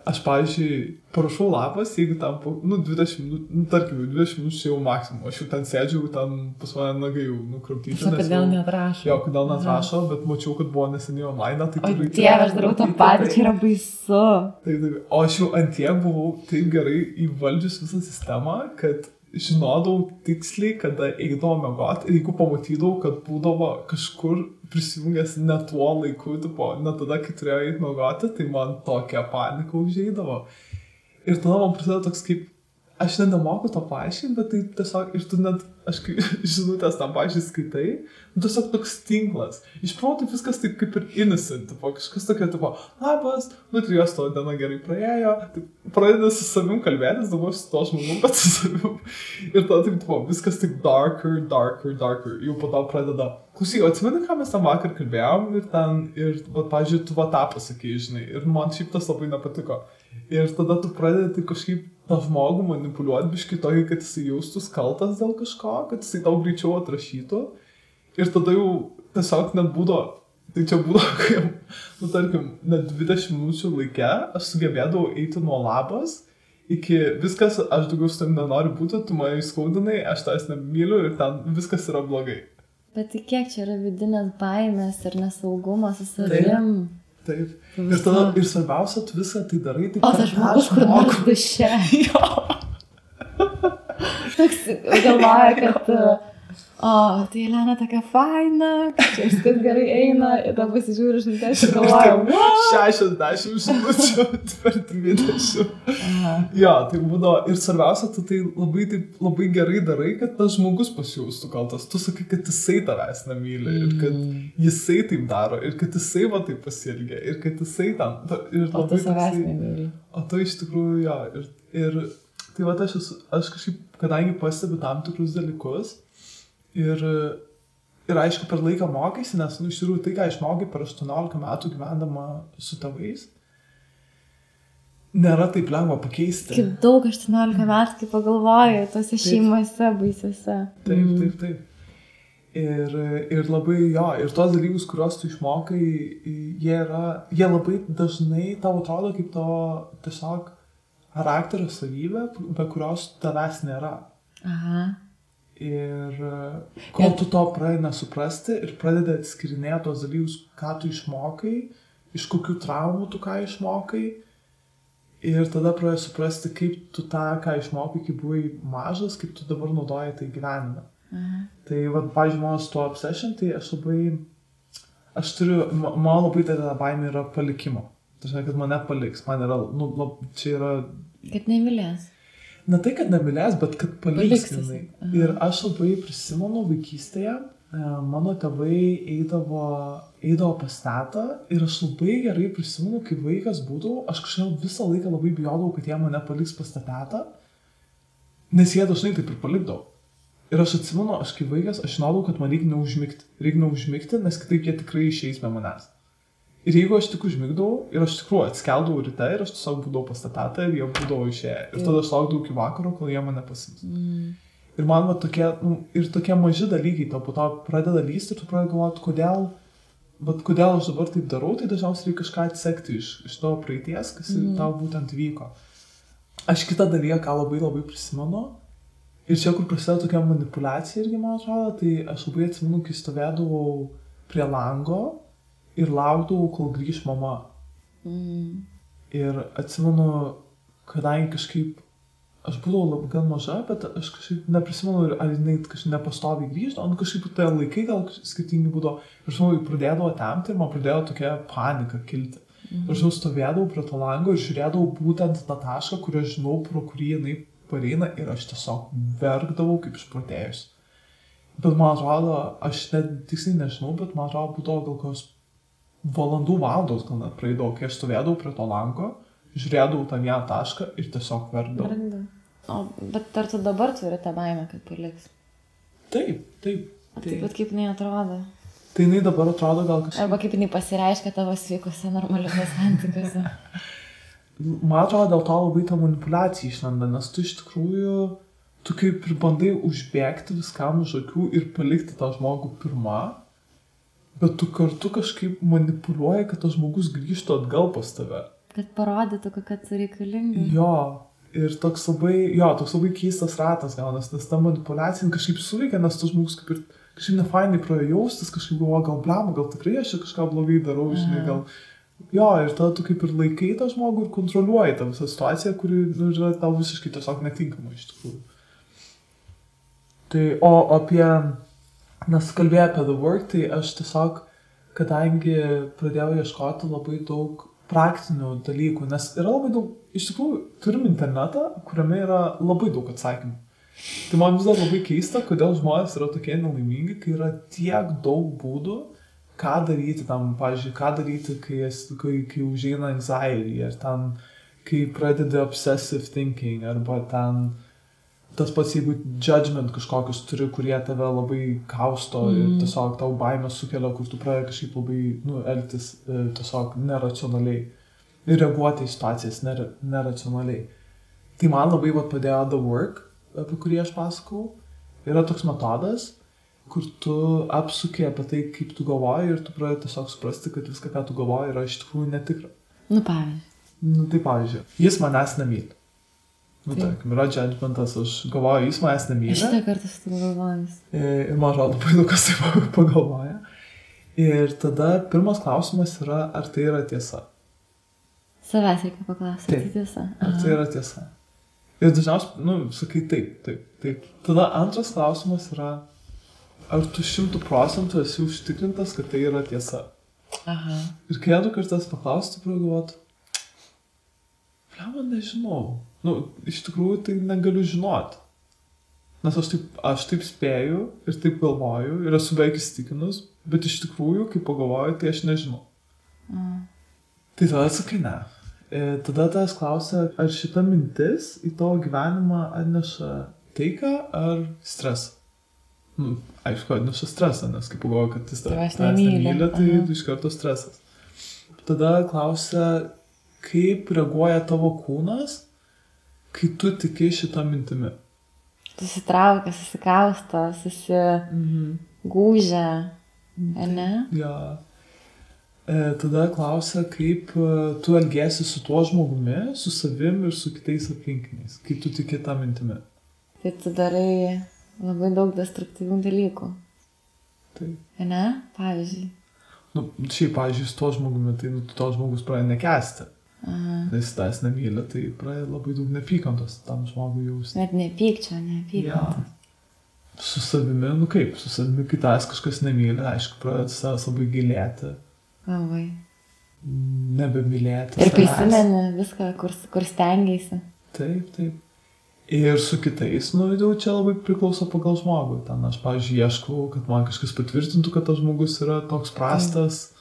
aš, pavyzdžiui, parašau labas, jeigu tam 20 minučių, tarkim, 20 minučių jau maksimum. Aš jau ten sėdžiu, ten pas mane nagai jau nukraptyti. Kodėl neatrašo? Jo, kodėl neatrašo, bet mačiau, kad buvo neseniai online. Tai Dieve, aš darau tą patį, čia yra baisu. Taip. O aš jau antiek buvau taip gerai įvaldžius visą sistemą, kad žinodavau tiksliai, kada eidavau miegoti ir jeigu pamatydavau, kad būdavo kažkur prisijungęs ne tuo laiku, ne tada, kai turėjau eiti miegoti, tai man tokia panika užeidavo. Ir tada man prasideda toks kaip, aš nemoku to paaiškinti, bet tai tiesiog, ir tu net, aš kai žinutės tam paaiškiai skaitai, tiesiog toks tinklas. Iš proto viskas taip kaip ir innocent, kažkas tokia, labas, tai jos to diena gerai praėjo, pradeda su savim kalbėtis, dabar su to žmogum, bet su savim. Ir tada taip, viskas taip darker. Jau po to pradeda, klausyk, atsimeni, ką mes tam vakar kalbėjom ir pavyzdžiui, tu tą pasakei, žinai, ir man šiaip tas labai nepatiko. Ir tada tu pradedi kažkaip tą žmogų manipuliuoti biškai tokį, kad jisai jaustus kaltas dėl kažko, kad jisai tau greičiau atrašytų. Ir tada jau tiesiog net būdavo, tai čia būdavo, kai, tarkim, net 20 minučių laike aš sugebėdavau eiti nuo labas iki viskas, aš daugiau su tam nenoriu būti, tu mane įskaudinai, aš tavęs nemyliu ir ten viskas yra blogai. Bet tai kiek čia yra vidinės baimės ir nesaugumas su savim? Taip. Ir tada, ir svarbiausia, tu visą tai darai, tai o tas žmogus, kur nors duše. Toks galvoja, kad O, tai Elena tokia faina, čia viskas gerai eina, ir tada pasižiūriu žinutės ir galvoju, 60 žinučių per 20. Jo, tai būdavo. Ir svarbiausia, tu tai labai gerai darai, kad tas žmogus pasijaustų kaltas. Tu sakai, kad jisai tavęs nemyli ir kad jisai taip daro ir kad jisai va taip pasielgia ir kad jisai ten. O tu savęs nemyli. O tu iš tikrųjų, jo. Ir tai va aš kažkaip, kadangi pastebiu tam tikrus dalykus, Ir aišku, per laiką mokaisi, nes, iš tikrųjų, tai, ką išmokai per 18 metų gyvendama su tėvais, nėra taip lengva pakeisti. Kaip daug 18 metų, kaip pagalvoju, tose šeimose baisiuose. Taip. Ir labai, jo, ir tos dalykus, kuriuos tu išmokai, jie labai dažnai tau atrodo kaip to tiesiog charakterio savybė, be kurios tavęs nėra. Aha. Ir kol tu to pradedi nesuprasti ir pradedi atskirinėti tos dalykus, ką tu išmokai, iš kokių traumų tu ką išmokai, ir tada pradedi suprasti, kaip tu tą, ką išmokai, kai buvai mažas, kaip tu dabar naudoji tai gyvenime. Tai, pavyzdžiui, mano su tuo obsession, tai man labai didelė baimė yra palikimo. Tai žinai, kad mane paliks, man yra, čia yra... Kad nemylės. Ne tai, kad nemylės, bet kad paliks. Ir aš labai prisimenu vaikystėje, mano tėvai eidavo pas tetą ir aš labai gerai prisimenu, kai vaikas būdavau, aš kažkaip visą laiką labai bijodavau, kad jie mane paliks pas tetą, nes jie dažnai taip ir palikdavo. Ir aš atsimenu, aš kaip vaikas, aš žinodavau, kad man reikia neužmigti, nes kitaip jie tikrai išeis be manęs. Ir jeigu aš tik užmigdavau, ir aš tikrųjų atskeldavau ryte, ir aš tiesiog būdavau pas tą tetą, ir jie būdavo išėję. Ir tada aš laukdavau iki vakaro, kol jie mane pasims. Ir man tokie maži dalykai, tau po to pradeda lysti, ir tu pradedi galvoti, kodėl aš dabar taip darau, tai dažniausiai reikia kažką atsekti iš tavo praeities, kas tau būtent vyko. Aš kitą dalyką, ką labai labai prisimenu, ir čia, kur prasideda tokia manipuliacija irgi, man atrodo, tai aš labai atsimenu, kai stovėdavau prie lango, ir laukdavau, kol grįž mama. Ir atsimenu, kadangi kažkaip, aš būdavau gan maža, bet aš kažkaip neprisimenu, ar jinai kažkaip nepastoviai grįždavo, kažkaip tai laikai gal skirtingi būdavo. Ir žinau, pradėdavo temti ir man pradėjo tokia panika kilti. Ir žinau, stovėdavau prie to lango ir žiūrėdavau būtent tą tašką, kurį aš žinau, pro kurį jinai pareina, ir aš tiesiog verkdavau kaip išprotėjus. Bet man atrodo, aš tiksliai nežinau, bet man atrodo, būdavo gal kokios valandos gal net praeidavo, kai aš stovėdavau prie to lango, žiūrėdavau tą vieną tašką ir tiesiog verkdavau. Bet ar tu dabar turi tą baimę, kad paliks? Taip. Taip pat kaip jinai atrodo? Tai jinai dabar atrodo gal kažkaip... Arba kaip jinai pasireiškia tavo sveikose, normaliuose santykiuose? Man atrodo, dėl to labai ta manipuliacija išlenda, nes tu iš tikrųjų, tu kaip ir bandai užbėgti viskam už akių ir palikti tą žmogų pirmą, bet tu kartu kažkaip manipuliuoji, kad tas žmogus grįžtų atgal pas tave. Kad parodytų, kad tu reikalinga. Jo, ir toks labai keistas ratas gaunas, nes ta manipuliacija kažkaip suveikia, nes tas žmogus kaip ir kažkaip nefainai pradėjo jaustis, kažkaip galvoja, gal blema, gal tikrai aš čia kažką blogai darau, žinai, gal... Jo, ir tada tu kaip ir laikai tą žmogų ir kontroliuoji tą visą situaciją, kuri yra tau visiškai tiesiog netinkama iš tikrųjų. Tai, o apie... Nes kalbėjau apie The Work, tai aš tiesiog, kadangi pradėjau ieškoti labai daug praktinių dalykų, nes yra labai daug, iš tikrųjų, turim internetą, kuriame yra labai daug atsakymų. Tai man vis dar labai keista, kodėl žmonės yra tokie nelaimingi, kai yra tiek daug būdų, ką daryti tam, pavyzdžiui, ką daryti, kai užeina anxiety, ar ten, kai pradedi obsessive thinking, arba ten... Tas pats, jeigu judgment kažkokius turi, kurie tave labai kausto ir tiesiog tau baimę sukelia, kur tu pradedi kažkaip labai elgtis tiesiog neracionaliai ir reaguoti į situacijas neracionaliai. Tai man labai padėjo The Work, apie kurį aš pasakau. Yra toks metodas, kur tu apsuki apie tai, kaip tu galvoji, ir tu pradedi tiesiog suprasti, kad viską, ką tu galvoji, yra iš tikrųjų netikra. Pavyzdžiui. Tai pavyzdžiui, jis manęs nemyli. Tarkim, yra judgmentas, aš galvoju, jis manęs nemyli. Šitą kartą su tu galvojus. Ir man atrodo, labai daug kas taip pagalvoja. Ir tada pirmas klausimas yra, ar tai yra tiesa. Savęs reikia paklausti, tai tiesa. Ar tai yra tiesa. Ir dažniausiai, sakai taip. Tada antras klausimas yra, ar tu 100% esi užtikrintas, kad tai yra tiesa. Aha. Ir kai du kartas paklausti, pragalvoti, man nežinau. Nu, iš tikrųjų tai negaliu žinoti. Nes aš taip spėju ir taip galvoju ir esu beveik įsitikinus, bet iš tikrųjų, kai pagalvoju, tai aš nežinau. Tai tada sakai ne. Tada tas klausia, ar šita mintis į tavo gyvenimą atneša taiką ar stresą. Nu, aišku, atneša stresą, nes kai pagalvoju, kad jis tavęs nemyli, tai iš karto stresas. Tada klausia, kaip reaguoja tavo kūnas, kai tu tiki šitą mintimi. Susitraukia, susikausto, susigūžia, ne? Ja. Tada klausia, kaip tu elgiesi su tuo žmogumi, su savim ir su kitais aplinkiniais, kai tu tiki tą mintimi. Tai tu darai labai daug destruktyvių dalykų. Taip. Ne? Pavyzdžiui. Nu, šiaip, pavyzdžiui, su tuo žmogumi, tai to žmogus pradeda nekęsti. Nes tas nemylė, tai pradeda labai daug nepykantos tam žmogui jausti. Net nepykčio, nepykantos. Ja. Su savimi, nu kaip, su savimi, kai tas kažkas nemylė, aišku, pradeda savęs labai gilėti. Labai. Nebemylėti. Ir prisimeni viską, kur stengiaisi. Taip. Ir su kitais, nu, jau čia labai priklauso pagal žmogų. Ten aš, pavyzdžiui, ieškau, kad man kažkas patvirtintų, kad tas žmogus yra toks prastas.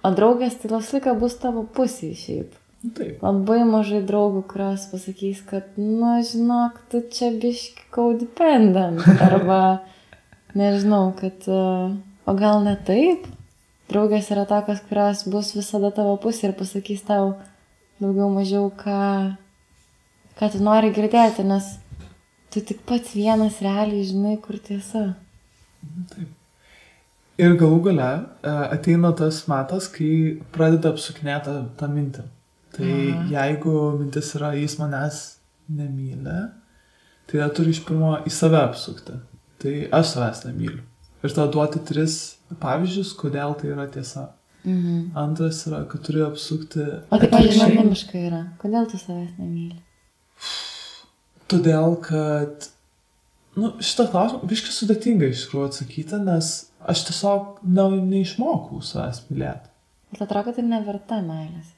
O draugės tai visą bus tavo pusėje šiaip. Taip. Labai mažai draugų, kurios pasakys, kad, nu, žinok, tu čia biški codependent. Arba, nežinau, kad, o gal ne taip? Draugės yra tokios, kurios bus visada tavo pusė ir pasakys tau daugiau mažiau, ką tu nori girdėti, nes tu tik pats vienas realiai žinai, kur tiesa. Taip. Ir galų gale ateina tas metas, kai pradeda apsukinėti tą mintį. Tai jeigu mintis yra, jis manęs nemyli, tai turi iš pirmo į save apsukti. Tai aš savęs nemyliu. Ir tada duoti 3 pavyzdžius, kodėl tai yra tiesa. Antras yra, kad turi apsukti... O tai pavyzdžiui, anonimiškai yra. Kodėl tu savęs nemyli? Todėl, kad... Nu, šitą klausimą biškai sudėtinga iš tikrųjų atsakyti, nes aš tiesiog neišmokau savęs mylėti. Bet atrodo, kad tai neverta meilės.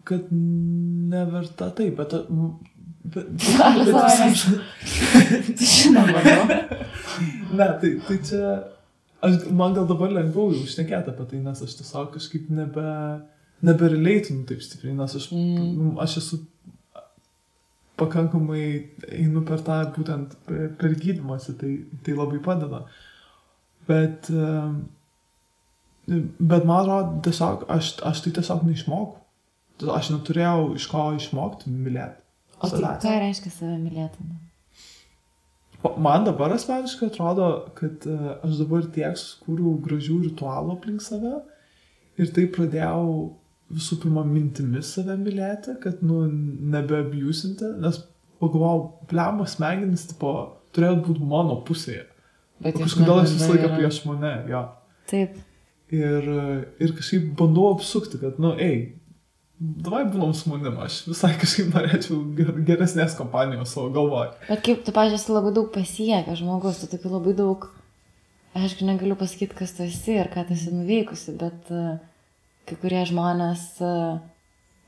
Kad neverta, taip, bet žinoma, no? Ne, tai čia, man gal dabar lengviau užšnekėti apie tai, nes aš tiesiog kažkaip nebereleitinu taip stipriai, nes aš esu pakankamai einu per tą būtent per gydymąsi, tai labai padeda. Bet man atrodo, tiesiog, aš tai tiesiog neišmokau. Aš neturėjau iš ko išmokti mylėti. O tai ką reiškia save mylėti? Man dabar asmeniškai atrodo, kad aš dabar tiek sukūriau gražių ritualų aplink save ir tai pradėjau visų pirma mintimis save mylėti, kad, nu, nebeabiusinti, nes pagalvojau, blemo smegenis, tipo, turėjo būti mano pusėje. O kažkodėl aš visą laiką prieš mane, jo. Taip. Ir kažkaip bandau apsukti, kad, nu, davai būnam su manim, aš visai kažkaip norėčiau geresnės kompanijos savo galvoj. Bet kaip tu, pažiūrėjau, esi labai daug pasiekę žmogus, tu tokių labai daug, aišku, negaliu pasakyti, kas tu esi ir ką tu esi nuveikusi, bet kai kurie žmonės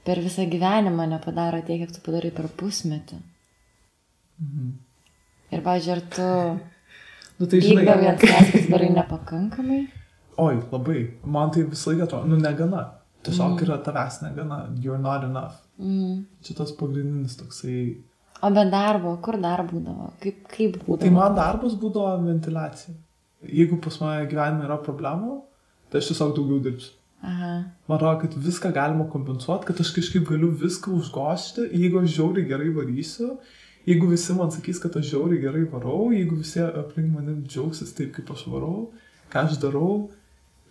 per visą gyvenimą nepadaro tiek, kiek tu padarai per pusmetį. Ir, pažiūrėjau, ar tu vykdavai ant savęs, kad darai nepakankamai? Oi, labai. Man tai visą laiką atrodo, nu, negana. Tiesiog yra tavęs negana, you're not enough. Čia tas pagrindinis toksai... O be darbo, kur dar būdavo? Kaip būdavo? Tai man darbas būdavo ventiliacija. Jeigu pas mane gyvenime yra problemų, tai aš tiesiog daugiau dirbsiu. Man atrodo, kad viską galima kompensuoti, kad aš kažkaip galiu viską užgošti, jeigu aš žiauriai gerai varysiu, jeigu visi man sakys, kad aš žiauriai gerai varau, jeigu visi aplink mane džiaugsis taip, kaip aš varau, ką aš darau,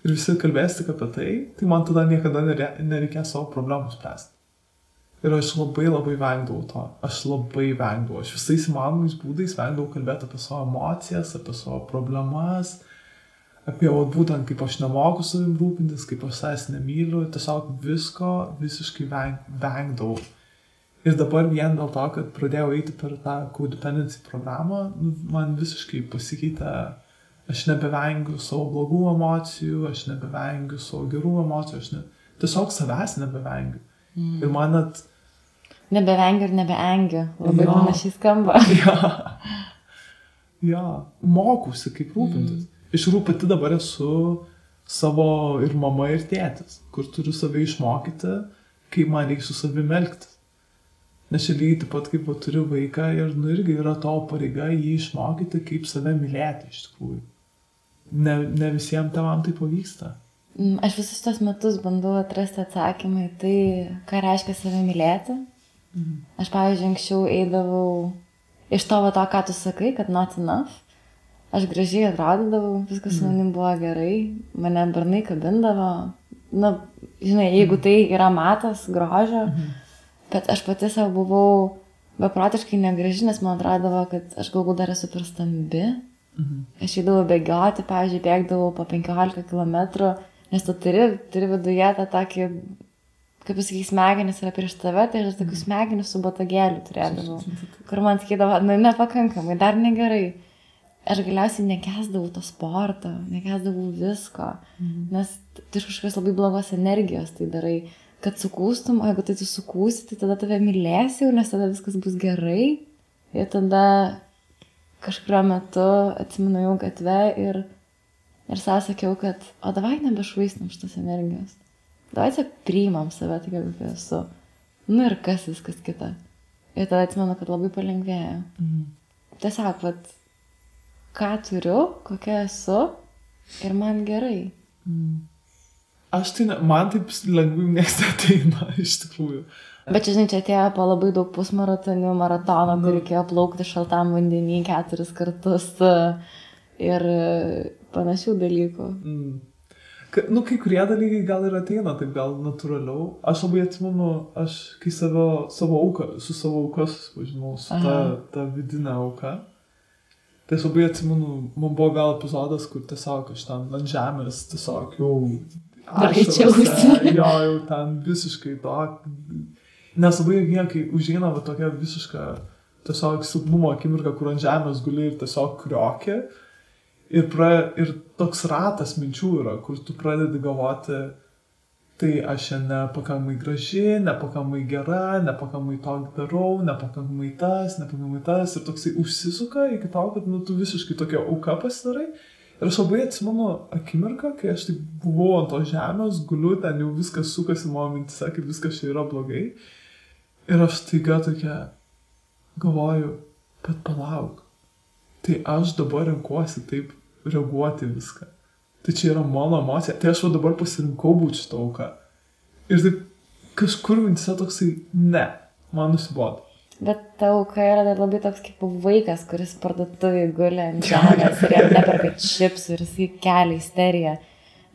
ir visi kalbės tik apie tai man tada niekada nereikės savo problemų spręsti. Ir aš labai vengdavau to. Aš visais įmanomais būdais vengdavau kalbėti apie savo emocijas, apie savo problemas, apie būtent kaip aš nemoku savim rūpintis, kaip aš savęs nemyliu, tiesiog visko visiškai vengdavau. Ir dabar vien dėl to, kad pradėjau eiti per tą codependency programą, man visiškai pasikeitė aš nebevengiu savo blogų emocijų, aš nebevengiu savo gerų emocijų, tiesiog savęs nebevengiu. Ir man net... Nebevengiu ir nebeengiu. Labai panašiai skamba. Ja, mokausi kaip rūpintis. Iš tikrųjų pati dabar esu savo ir mama, ir tėtis, kur turiu save išmokyti, kaip man reikia su savimi elgtis. Nes čia lygiai taip pat, kaip turiu vaiką ir irgi yra tavo pareiga jį išmokyti, kaip save mylėti iš tikrųjų. Ne visiems tėvam tai pavyksta. Aš visus tos metus bandau atrasti atsakymą į tai, ką reiškia save mylėti. Aš, pavyzdžiui, anksčiau eidavau iš to, ką tu sakai, kad not enough. Aš gražiai atrodydavau, viskas su manim buvo gerai, mane bernai kabindavo. Na, žinai, jeigu tai yra matas, grožio, bet aš pati savo buvau beprotiškai negraži, nes man atrodavo, kad aš galbūt dar esu per stambi. Aš eidavau bėgioti, pavyzdžiui, bėgdavau po 15 km, nes tu turi viduje tą tokį, kaip pasakai, smegenis yra prieš tave, tai aš tokių smegenį su botagėliu turėdavau, kur man sakydavo, nepakankamai, dar negerai. Aš galiausiai nekęsdavau to sporto, nekęsdavau visko, nes tu iš kažkokios labai blogos energijos tai darai, kad sukūstum, o jeigu tai tu sukūsi, tai tada tave mylėsi, nes tada viskas bus gerai. Ir tada kažkurio metu atsimenu gatve ir savo sakiau, kad o davai nebešvaistam šitos energijos. Davai tiesiog priimam save, tai kaip esu. Nu ir kas viskas kita. Ir tada atsimenu, kad labai palengvėjo. Tiesiog, ką turiu, kokia esu ir man gerai. Aš tai, man taip lengvai neateina iš tikrųjų. Bet čia, žinai, čia atėjo po labai daug pusmaratonių, maratono, kur reikėjo plaukti šaltam vandenį 4 kartus ir panašių dalykų. Kai kurie dalykai gal ir ateina, taip gal natūraliau. Aš labai atsimenu, aš kai su savo auka susipažinau, su ta vidinė auka. Tai aš labai atsimenu, man buvo gal epizodas, kur tiesiog aš ten ant žemės tiesiog jau jau ten visiškai to. Nes labai kai užeina tokia visiška tiesiog silpnumo akimirka, kur ant žemės guli ir tiesiog kriokė. Ir toks ratas minčių yra, kur tu pradedi galvoti, tai aš nepakankamai graži, nepakankamai gera, nepakankamai to darau, nepakankamai tas. Ir toksai užsisuka iki to, kad tu visiškai tokia auka pasidarai. Ir aš labai atsimenu akimirką, kai aš taip buvau ant to žemės, guliu, ten jau viskas sukasi mano mintise, kaip viskas čia yra blogai. Ir aš taiga tokia galvoju, bet palauk, tai aš dabar renkuosi taip reaguoti viską. Tai čia yra mano emocija. Tai aš dabar pasirinkau būti šitą auką. Ir taip kažkur mintise toksai, ne, man nusibodo. Bet ta auka yra dar labai toks kaip vaikas, kuris parduotuvėje guli ant žemės ir jam neperka čipsų ir jisai kelia isteriją.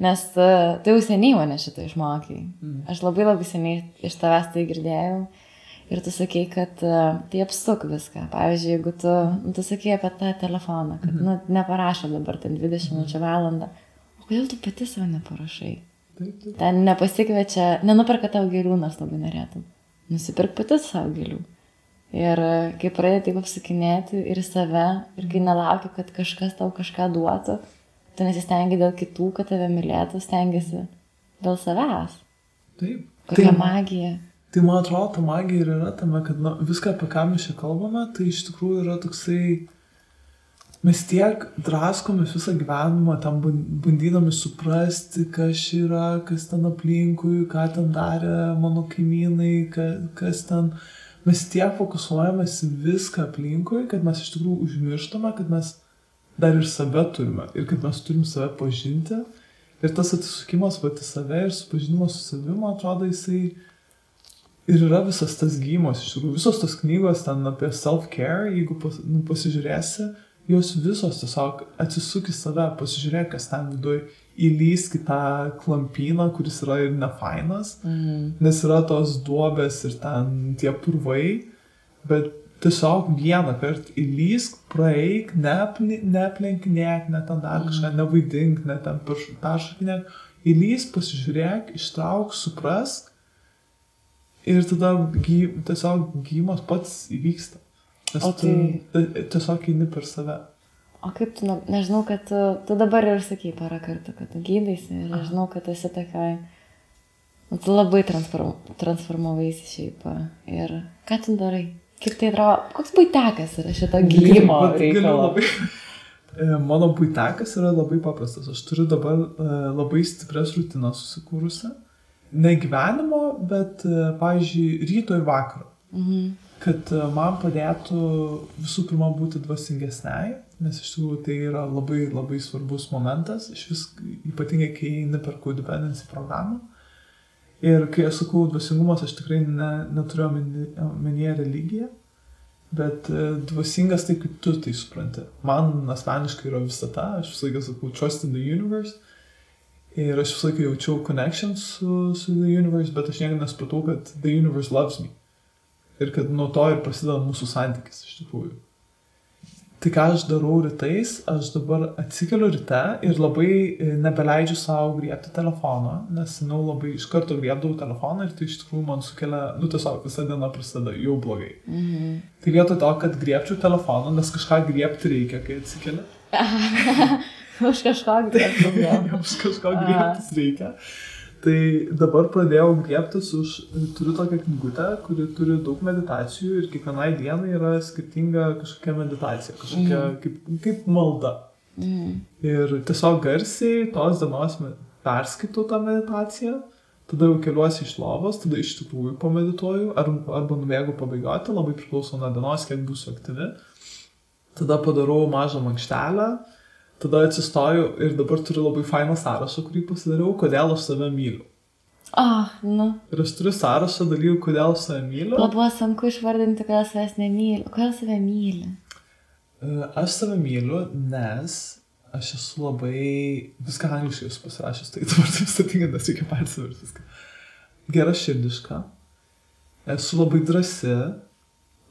Nes tai jau seniai mane šitą išmokai. Aš labai seniai iš tavęs tai girdėjau. Ir tu sakei, kad tai apsuk viską. Pavyzdžiui, jeigu tu sakei apie tą telefoną, kad neparašo dabar ten 20 minučių valandą. O kodėl tu pati savo neparašai? Ten nepasikviečia, nenuperka tau gėlių, nors labai norėtum. Nusipirk pati savo gėlių. Ir kai pradedi taip apsakinėti ir save, ir kai nelauki, kad kažkas tau kažką duotų, tu nesistengi dėl kitų, kad tave mylėtų, stengiasi dėl savęs. Taip. Kokia magija. Tai man atrodo, ta magija ir yra tame, kad viską, apie ką mes čia kalbame, tai iš tikrųjų yra toksai, mes tiek draskomės visą gyvenimą, tam bandydami suprasti, kas yra, kas ten aplinkui, ką ten darė mano kaimynai, kas ten... Mes tiek fokusuojamės viską aplinkui, kad mes iš tikrųjų užmirštame, kad mes dar ir save turime ir kad mes turim save pažinti. Ir tas atsisukimas pati save ir supažinimas su savimi, man atrodo, jisai ir yra visas tas gyjimas. Iš tikrųjų, visos tos knygos ten apie self-care, jeigu pasižiūrėsi, jos visos tiesiog atsisuk į save, pasižiūrėk, kas ten viduj, įlysk į tą klampyną, kuris yra ir nefainas, nes yra tos duobės ir ten tie purvai, bet tiesiog vieną kartą įlysk, praeik, neaplenkinėk, ne ten dar kažką, nevaidink, ne ten peršakinėk, įlysk, pasižiūrėk, ištrauk, suprask ir tada tiesiog gyjimas pats įvyksta. Nes tu tiesiog eini per save. O kaip tu, nežinau, kad tu dabar ir sakai porą kartų, kad tu gydaisi ir aš žinau, kad esi tokioj, tu labai transformavaisi šiaip. Ir ką tu darai? Kaip tai atrodo, koks buitekas yra šito gydymo reikalo? Mano buitekas yra labai paprastas. Aš turiu dabar labai stiprias rutinas susikūrusi. Ne gyvenimo, bet, pavyzdžiui, ryto ir vakaro. Kad man padėtų visų pirma būti dvasingesniai, nes iš tikrųjų tai yra labai, labai svarbus momentas, ypatingai kai eini per codependency programą. Ir kai aš sakau dvasingumas, aš tikrai neturiu omenyje religiją, bet dvasingas tai, kaip tu tai supranti. Man asmeniškai yra visata, aš visą laiką sakau trust in the universe. Ir aš visą laiką jaučiau connection su the universe, bet aš niekada nesupratau, kad the universe loves me. Ir kad nuo to ir prasideda mūsų santykis iš tikrųjų. Tai ką aš darau rytais, aš dabar atsikeliu ryte ir labai nebeleidžiu savo griebti telefoną, nes labai iš karto griebdavau telefoną ir tai iš tikrųjų man sukelia, tiesiog visą dieną prasideda jau blogai. Tai vietoj to, kad griebčiau telefoną, nes kažką griebti reikia, kai atsikeli. Už kažko griebti. Už kažko griebtis reikia. Tai dabar pradėjau griebtis turiu tokią knygutę, kuri turi daug meditacijų ir kiekvienai dienai yra skirtinga kažkokia meditacija, kažkokia kaip malda. Ir tiesiog garsiai tos dienos perskaitau tą meditaciją, tada jau keliuosi iš lovos, tada iš tikrųjų pamedituoju arba nubėgu pabėgioti, labai priklauso nuo dienos, kiek būsiu aktyvi. Tada padarau mažą mankštelę. Tada atsistoju ir dabar turiu labai fainą sąrašą, kurį pasidariau, kodėl aš save myliu. Ir aš turiu sąrašą dalykų, kodėl aš save myliu. Buvo sunku išvardinti, kodėl savęs nemyliu. Kodėl save myli? Aš save myliu, nes aš esu labai... Viską angliškai esu pasirašęs, tai dabar taip statinga, nes reikia persiverti viską. Gera širdiška. Esu labai drąsi.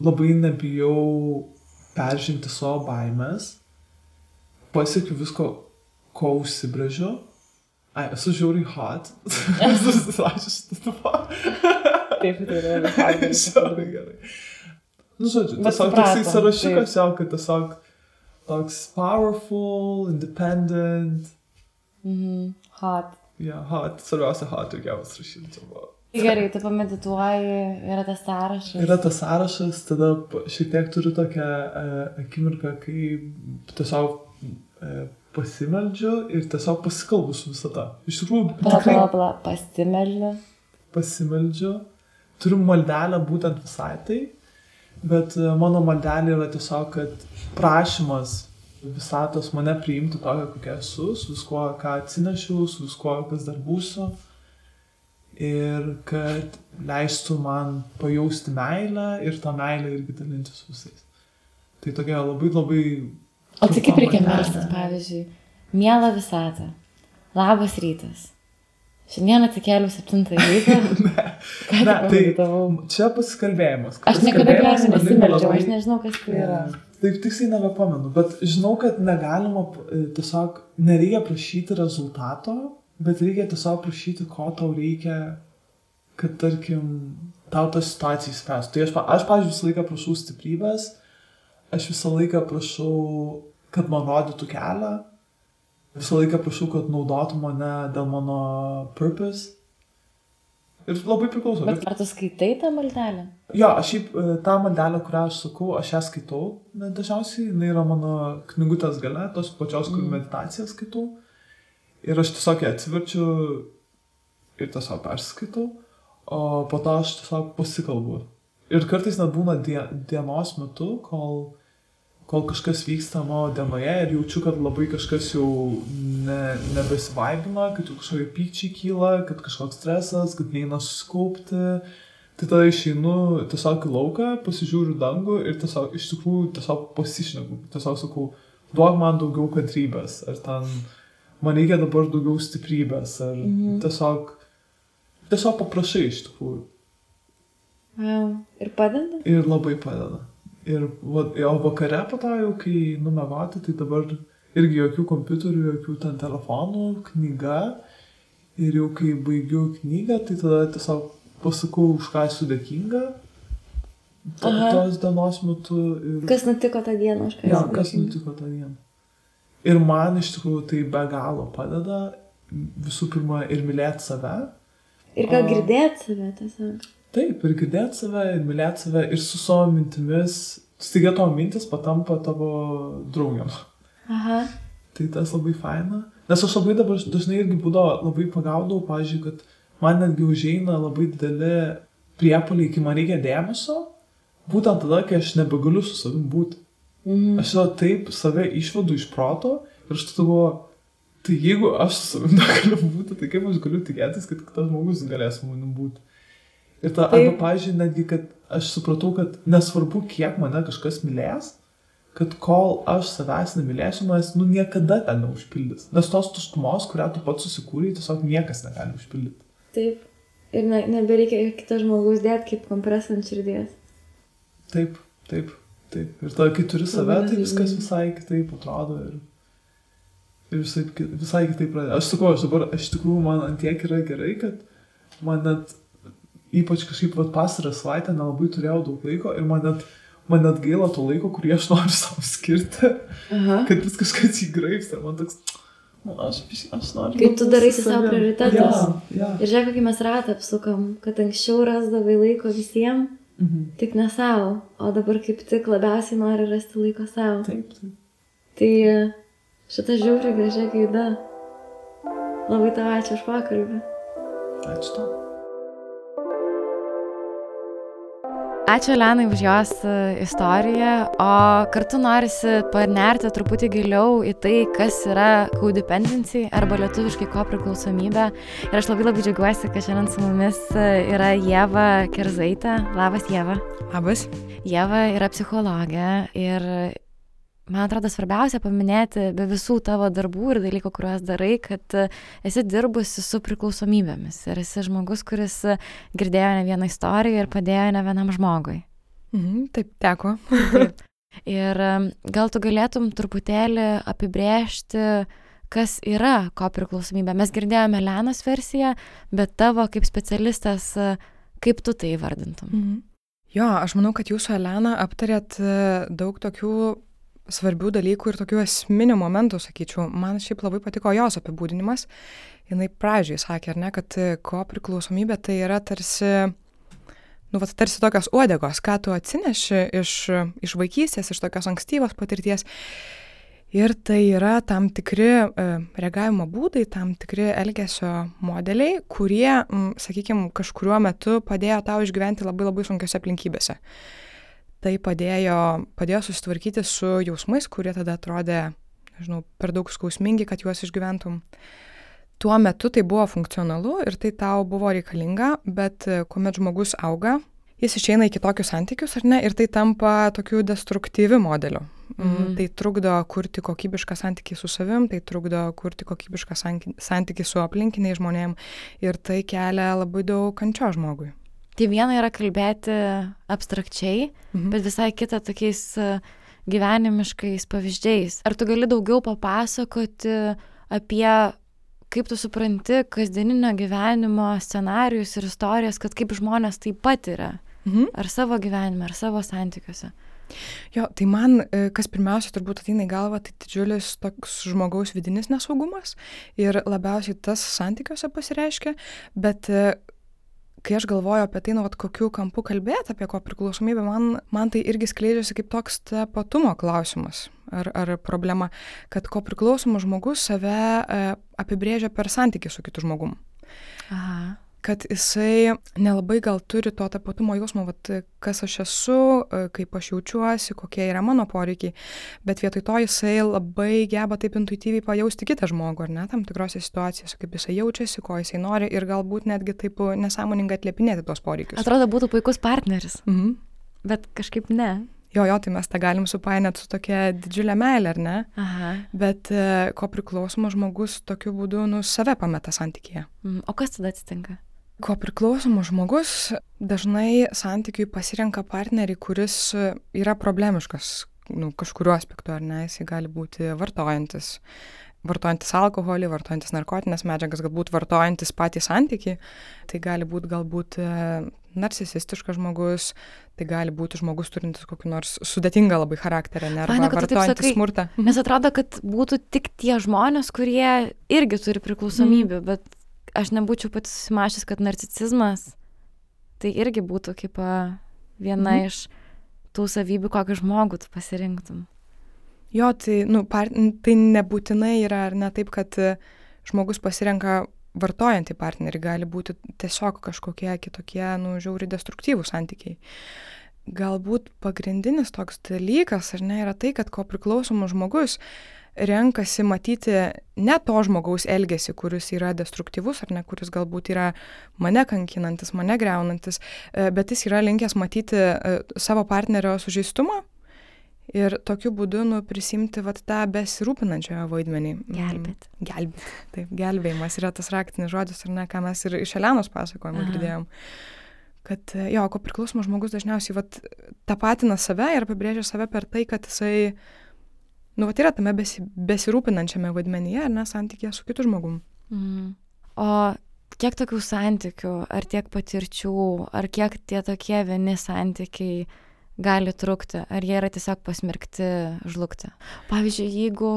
Labai nebijau peržengti savo baimės. Pasiekiu visko, ko užsibrėžiu. Esu žiauriai hot. Esu susirašęs šitą tupą. Taip, tai yra hot. Žiauriai gerai. Žodžiu, tiesiog toksai sąrašiukas jau, kad tiesiog toks powerful, independent. Hot. Hot. Svarbiausia hot, reikia pasirašyti. Gerai, tu pamedituoji, yra tas sąrašas. Yra tas sąrašas, tada šiek tiek turiu tokią akimirką, kai tiesiog pasimeldžiu ir tiesiog pasikalbu su visata. Iš tikrųjų... Pasimeldžiu. Turiu maldelę būtent visai tai, bet mano maldelė yra tiesiog, kad prašymas visatos mane priimti tokią, kokia esu, su viskuo, ką atsinešiau, su viskuo, kas dar būsiu. Ir kad leistų man pajausti meilę ir tą meilę irgi dalintis visais. Tai tokia labai, labai... O tai kaip reikia melstis, pavyzdžiui, miela visata, labas rytas. Šiandien atsikėliau 7 ryto. Ne, tai čia pasikalbėjimas. Aš niekada gyvenime nesimeldžiau, aš nežinau, kas tai yra. Taip tiksliai nebepamenu, bet žinau, kad negalima tiesiog, nereikia prašyti rezultato, bet reikia tiesiog prašyti, ko tau reikia, kad, tarkim, tau tą situaciją įspręstų. Tai aš pavyzdžiui, visą laiką prašau stiprybės. Aš visą laiką prašau, kad man rodytų kelią. Visą laiką prašau, kad naudotų mane dėl mano purpose. Ir labai priklauso. Bet ar tu skaitai tą maldelę? Jo, aš šiaip tą maldelę, kurią aš sakau, aš ją skaitau. Dažniausiai, jinai yra mano knygutės gale, tos pačios, kur meditaciją skaitau. Ir aš tiesiog ją atsiverčiu ir tiesiog perskaitau. O po to aš tiesiog pasikalbu. Ir kartais net būna dienos metu, kol kažkas vyksta mano dienoje ir jaučiu, kad labai kažkas jau nebesivaibina, kad jau kažkokie pykčiai kyla, kad kažkoks stresas, kad neina susikaupti. Tai tada išeinu tiesiog į lauką, pasižiūriu dangų ir tiesiog iš tikrųjų tiesiog pasišneku. Tiesiog sakau, duok man daugiau kantrybės, ar ten man reikia dabar daugiau stiprybės, ar tiesiog paprašai iš tikrųjų. Ir padeda? Ir labai padeda. O vakare po to jau, kai numegoti, tai dabar irgi jokių kompiuterių, jokių ten telefonų, knyga. Ir jau kai baigiu knygą, tai tada tiesiog pasakau, už ką esu dėkinga tos dienos metu. Kas nutiko tą dieną, už ką esi dėkinga? Kas nutiko tą dieną. Ir man iš tikrųjų tai be galo padeda visų pirma ir mylėti save. Ir gal girdėti save tiesiog. Taip, ir girdėti save, ir mylėti save, ir su savo mintimis. Staiga tavo mintis patampa tavo draugiam. Aha. Tai tas labai faina. Nes aš labai dabar dažnai irgi būdavo labai pagaudavau, pavyzdžiui, kad man netgi užeina labai dideli priepuoliai, kai man reikia dėmesio, būtent tada, kai aš nebegaliu su savim būti. Aš jau taip save išvedu iš proto ir aš tada galvoju, tai jeigu aš su savim negaliu būti, tai kaip aš galiu tikėtis, kad kitas žmogus galės su manim būti. Ir ta, arba, pavyzdžiui, netgi, kad aš supratau, kad nesvarbu, kiek mane kažkas mylės, kad kol aš savęs nemylėsiu, manęs niekada ten neužpildys. Nes tos tuštumos, kurią tu pats susikūrei, tiesiog niekas negali užpildyti. Taip. Ir nebereikia kito žmogaus dėti kaip kompresą ant širdies. Taip. Ir tada, kai turi save, tai viskas visai kitaip atrodo ir visai kitaip pradeda. Aš sakau, aš tikrųjų man antiek yra gerai, kad man net, ypač kažkaip pastarą savaitę nelabai turėjau daug laiko ir man net gaila to laiko, kurį aš noriu savo skirti, kad vis kažkas įgraipsta. Man toks, aš noriu. Kai tu darai savo prioritetus. Ja. Ir žiūrėk, kokį mes ratą apsukam, kad anksčiau rasdavai laiko visiems, tik ne savo, o dabar kaip tik labiausiai nori rasti laiko savo. Taip. Tai šitą žiauriai gražią gaida. Labai tau ačiū už pokalbį. Ačiū tau. Ačiū Elenai už jos istoriją, o kartu norisi panerti truputį giliau į tai, kas yra codependency arba lietuviškai kopriklausomybė. Ir aš labai džiaugiuosi, kad šiandien su mumis yra Ieva Kerzaitė. Labas, Ieva. Labas. Ieva yra psichologė ir man atrodo svarbiausia paminėti be visų tavo darbų ir dalykų, kuriuos darai, kad esi dirbusi su priklausomybėmis ir esi žmogus, kuris girdėjo ne vieną istoriją ir padėjo ne vienam žmogui. Taip, teko. Taip. Ir gal tu galėtum truputėlį apibrėžti, kas yra kopriklausomybė. Mes girdėjome Elenos versiją, bet tavo kaip specialistas, kaip tu tai įvardintum? Jo, aš manau, kad jūs su Elena aptarėt daug tokių svarbių dalykų ir tokių esminių momentų, sakyčiau. Man šiaip labai patiko jos apibūdinimas. Jinai pradžiai sakė, ar ne, kad kopriklausomybė tai yra tarsi tokios uodegos, ką tu atsineši iš vaikystės, iš tokios ankstyvos patirties. Ir tai yra tam tikri reagavimo būdai, tam tikri elgesio modeliai, kurie, sakykime, kažkuriuo metu padėjo tau išgyventi labai labai sunkiose aplinkybėse. Tai padėjo susitvarkyti su jausmais, kurie tada atrodė, per daug skausmingi, kad juos išgyventum. Tuo metu tai buvo funkcionalu ir tai tau buvo reikalinga, bet kuomet žmogus auga, jis išeina į kitokius santykius, ar ne, ir tai tampa tokiu destruktyviu modeliu. Tai trukdo kurti kokybišką santykį su savim, tai trukdo kurti kokybišką santykį su aplinkiniais žmonėm ir tai kelia labai daug kančios žmogui. Tai viena yra kalbėti abstrakčiai, bet visai kita tokiais gyvenimiškais pavyzdžiais. Ar tu gali daugiau papasakoti apie, kaip tu supranti kasdieninio gyvenimo scenarijus ir istorijas, kad kaip žmonės tai patiria? Ar savo gyvenime, ar savo santykiuose? Jo, tai man, kas pirmiausia turbūt ateina į galvą, tai didžiulis toks žmogaus vidinis nesaugumas ir labiausiai tas santykiuose pasireiškia, bet kai aš galvoju apie tai, kokiu kampu kalbėti apie kopriklausomybę, man tai irgi skleidžiasi kaip toks tapatumo klausimas ar problema, kad kopriklausomas žmogus save apibrėžia per santykį su kitu žmogum. Aha. Kad jisai nelabai gal turi to tapatumo jausmo, kas aš esu, kaip aš jaučiuosi, kokie yra mano poreikiai, bet vietoj to jisai labai geba taip intuityviai pajausti kitą žmogų, ar ne, tam tikrose situacijose, kaip jisai jaučiasi, ko jisai nori ir galbūt netgi taip nesąmoningai atliepinėti tos poreikius. Atrodo, būtų puikus partneris, bet kažkaip ne. Jo, tai mes tą galim supainioti su tokia didžiulė meilė, ar ne? Aha. Bet kopriklausomas žmogus tokiu būdu save pameta santykyje. O kas tada atsitinka? Kopriklausomas žmogus dažnai santykiui pasirenka partnerį, kuris yra problemiškas, kažkuriuo aspektu, ar ne, jisai gali būti vartojantis alkoholį, vartojantis narkotinės medžiagas, galbūt vartojantis patį santykį, tai gali būti galbūt narcisistiškas žmogus, tai gali būti žmogus turintis kokį nors sudėtingą labai charakterį, arba Faina, kad tu taip vartojantis sakai. smurtą. Nes atrodo, kad būtų tik tie žmonės, kurie irgi turi priklausomybių, bet aš nebūčiau pati susimašęs, kad narcisizmas tai irgi būtų kaip viena iš tų savybių, kokį žmogų tu pasirinktum. Jo, tai, tai nebūtinai yra, ar ne taip, kad žmogus pasirenka vartojantį partnerį, gali būti tiesiog kažkokie kitokie, žiauriai destruktyvūs santykiai. Galbūt pagrindinis toks dalykas, ar ne, yra tai, kad kopriklausomas žmogus renkasi matyti ne to žmogaus elgesį, kuris yra destruktyvus, ar ne, kuris galbūt yra mane kankinantis, mane greunantis, bet jis yra linkęs matyti savo partnerio sužeistumą ir tokiu būdu prisimti tą besirūpinančiojo vaidmenį. Gelbėti. Taip, gelbėjimas yra tas raktinis žodis, ar ne, ką mes ir iš Elenos pasakojimo girdėjom. Kad kopriklausomas žmogus dažniausiai tapatina save ir apibrėžia save per tai, kad jisai yra tame besirūpinančiame vaidmenyje, ar ne, santykėje su kitu žmogum. O kiek tokių santykių, ar tiek patirčių, ar kiek tie tokie vieni santykiai gali trukti, ar jie yra tiesiog pasmerkti žlugti? Pavyzdžiui, jeigu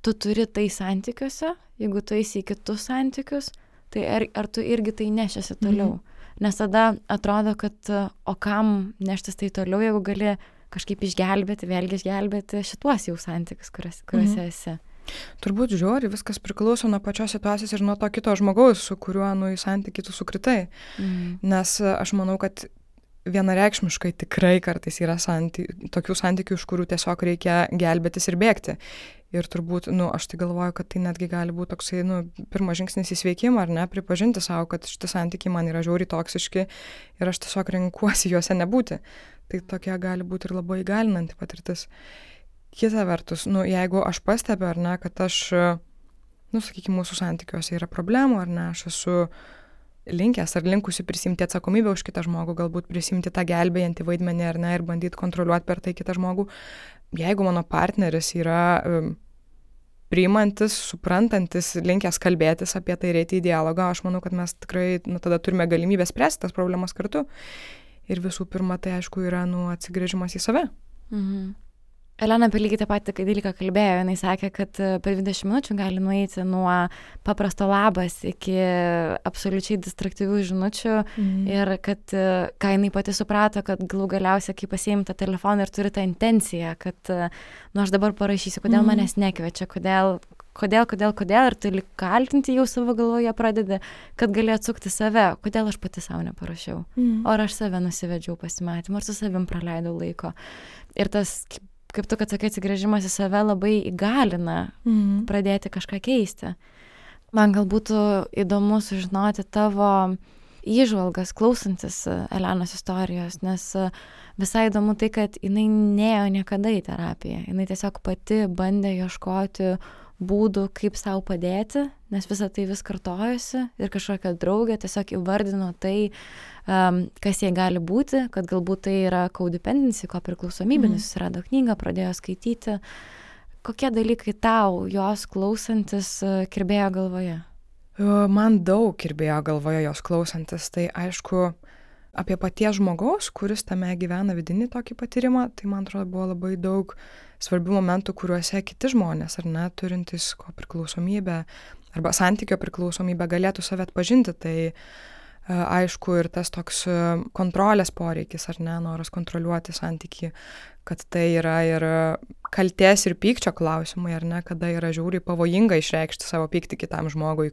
tu turi tai santykiuose, jeigu tu eisi į kitus santykius, tai ar tu irgi tai nešiasi toliau? Nes tada atrodo, kad o kam neštis tai toliau, jeigu gali kažkaip vėlgi išgelbėti šituos jau santykius, kuriuose esi. Turbūt žiūri, viskas priklauso nuo pačios situacijos ir nuo to kito žmogaus, su kuriuo į santykį tu sukritai. Nes aš manau, kad vienareikšmiškai tikrai kartais yra tokių santykių, iš kurių tiesiog reikia gelbėtis ir bėgti. Ir turbūt, aš tai galvoju, kad tai netgi gali būti toksai, pirmas žingsnis į sveikimą, ar ne, pripažinti savo, kad šitie santykiai man yra žiauriai toksiški ir aš tiesiog renkuosi juose nebūti. Tai tokia gali būti ir labai įgalinanti patirtis. Kita vertus, jeigu aš pastebiu, ar ne, kad aš, sakykime, mūsų santykiuose yra problemų, ar ne, aš esu linkęs ar linkusi prisimti atsakomybę už kitą žmogų, galbūt prisimti tą gelbėjantį vaidmenį, ar ne, ir bandyti kontroliuoti per tai kitą žmogų. Jeigu mano partneris yra priimantis, suprantantis, linkęs kalbėtis apie tai, eiti į dialogą, aš manau, kad mes tikrai tada turime galimybę spręsti tas problemas kartu. Ir visų pirma, tai aišku yra atsigręžimas į save. Elena apie lygiai tą patį dalyką kalbėjo, jinai sakė, kad per 20 minučių gali nueiti nuo paprasto labas iki absoliučiai distraktyvių žinučių ir kad, ką jinai pati suprato, kad galų galiausiai, kai pasiimi tą telefoną ir turi tą intenciją, kad aš dabar parašysiu, kodėl manęs nekviečia, kodėl ir tu kaltinti jau savo galvoje pradedi, kad gali atsukti save, kodėl aš pati savo neparašiau, ar aš save nusivedžiau pasimatymą, ar su savim praleidau laiko. Ir tas, kaip tu, kad sakai, atsigręžimas į save labai įgalina pradėti kažką keisti. Man gal būtų įdomu sužinoti tavo įžvalgas, klausantis Elenos istorijos, nes visai įdomu tai, kad jinai nėjo niekada į terapiją. Jinai tiesiog pati bandė ieškoti būdų, kaip sau padėti, nes visą tai vis kartojosi ir kažkokia draugė tiesiog įvardino tai, kas jai gali būti, kad galbūt tai yra codependency, kopriklausomybė, nes susirado knygą, pradėjo skaityti. Kokie dalykai tau, jos klausantis, kirbėjo galvoje? Man daug kirbėjo galvoje jos klausantis. Tai aišku, apie paties žmogaus, kuris tame gyvena vidinį tokį patyrimą, tai man atrodo buvo labai daug svarbių momentų, kuriuose kiti žmonės, ar ne, turintys kopriklausomybę arba santykio priklausomybę galėtų save atpažinti. Tai aišku ir tas toks kontrolės poreikis, ar ne, noras kontroliuoti santykį, kad tai yra ir kaltės ir pykčio klausimai, ar ne, kada yra žiauriai pavojinga išreikšti savo pyktį kitam žmogui,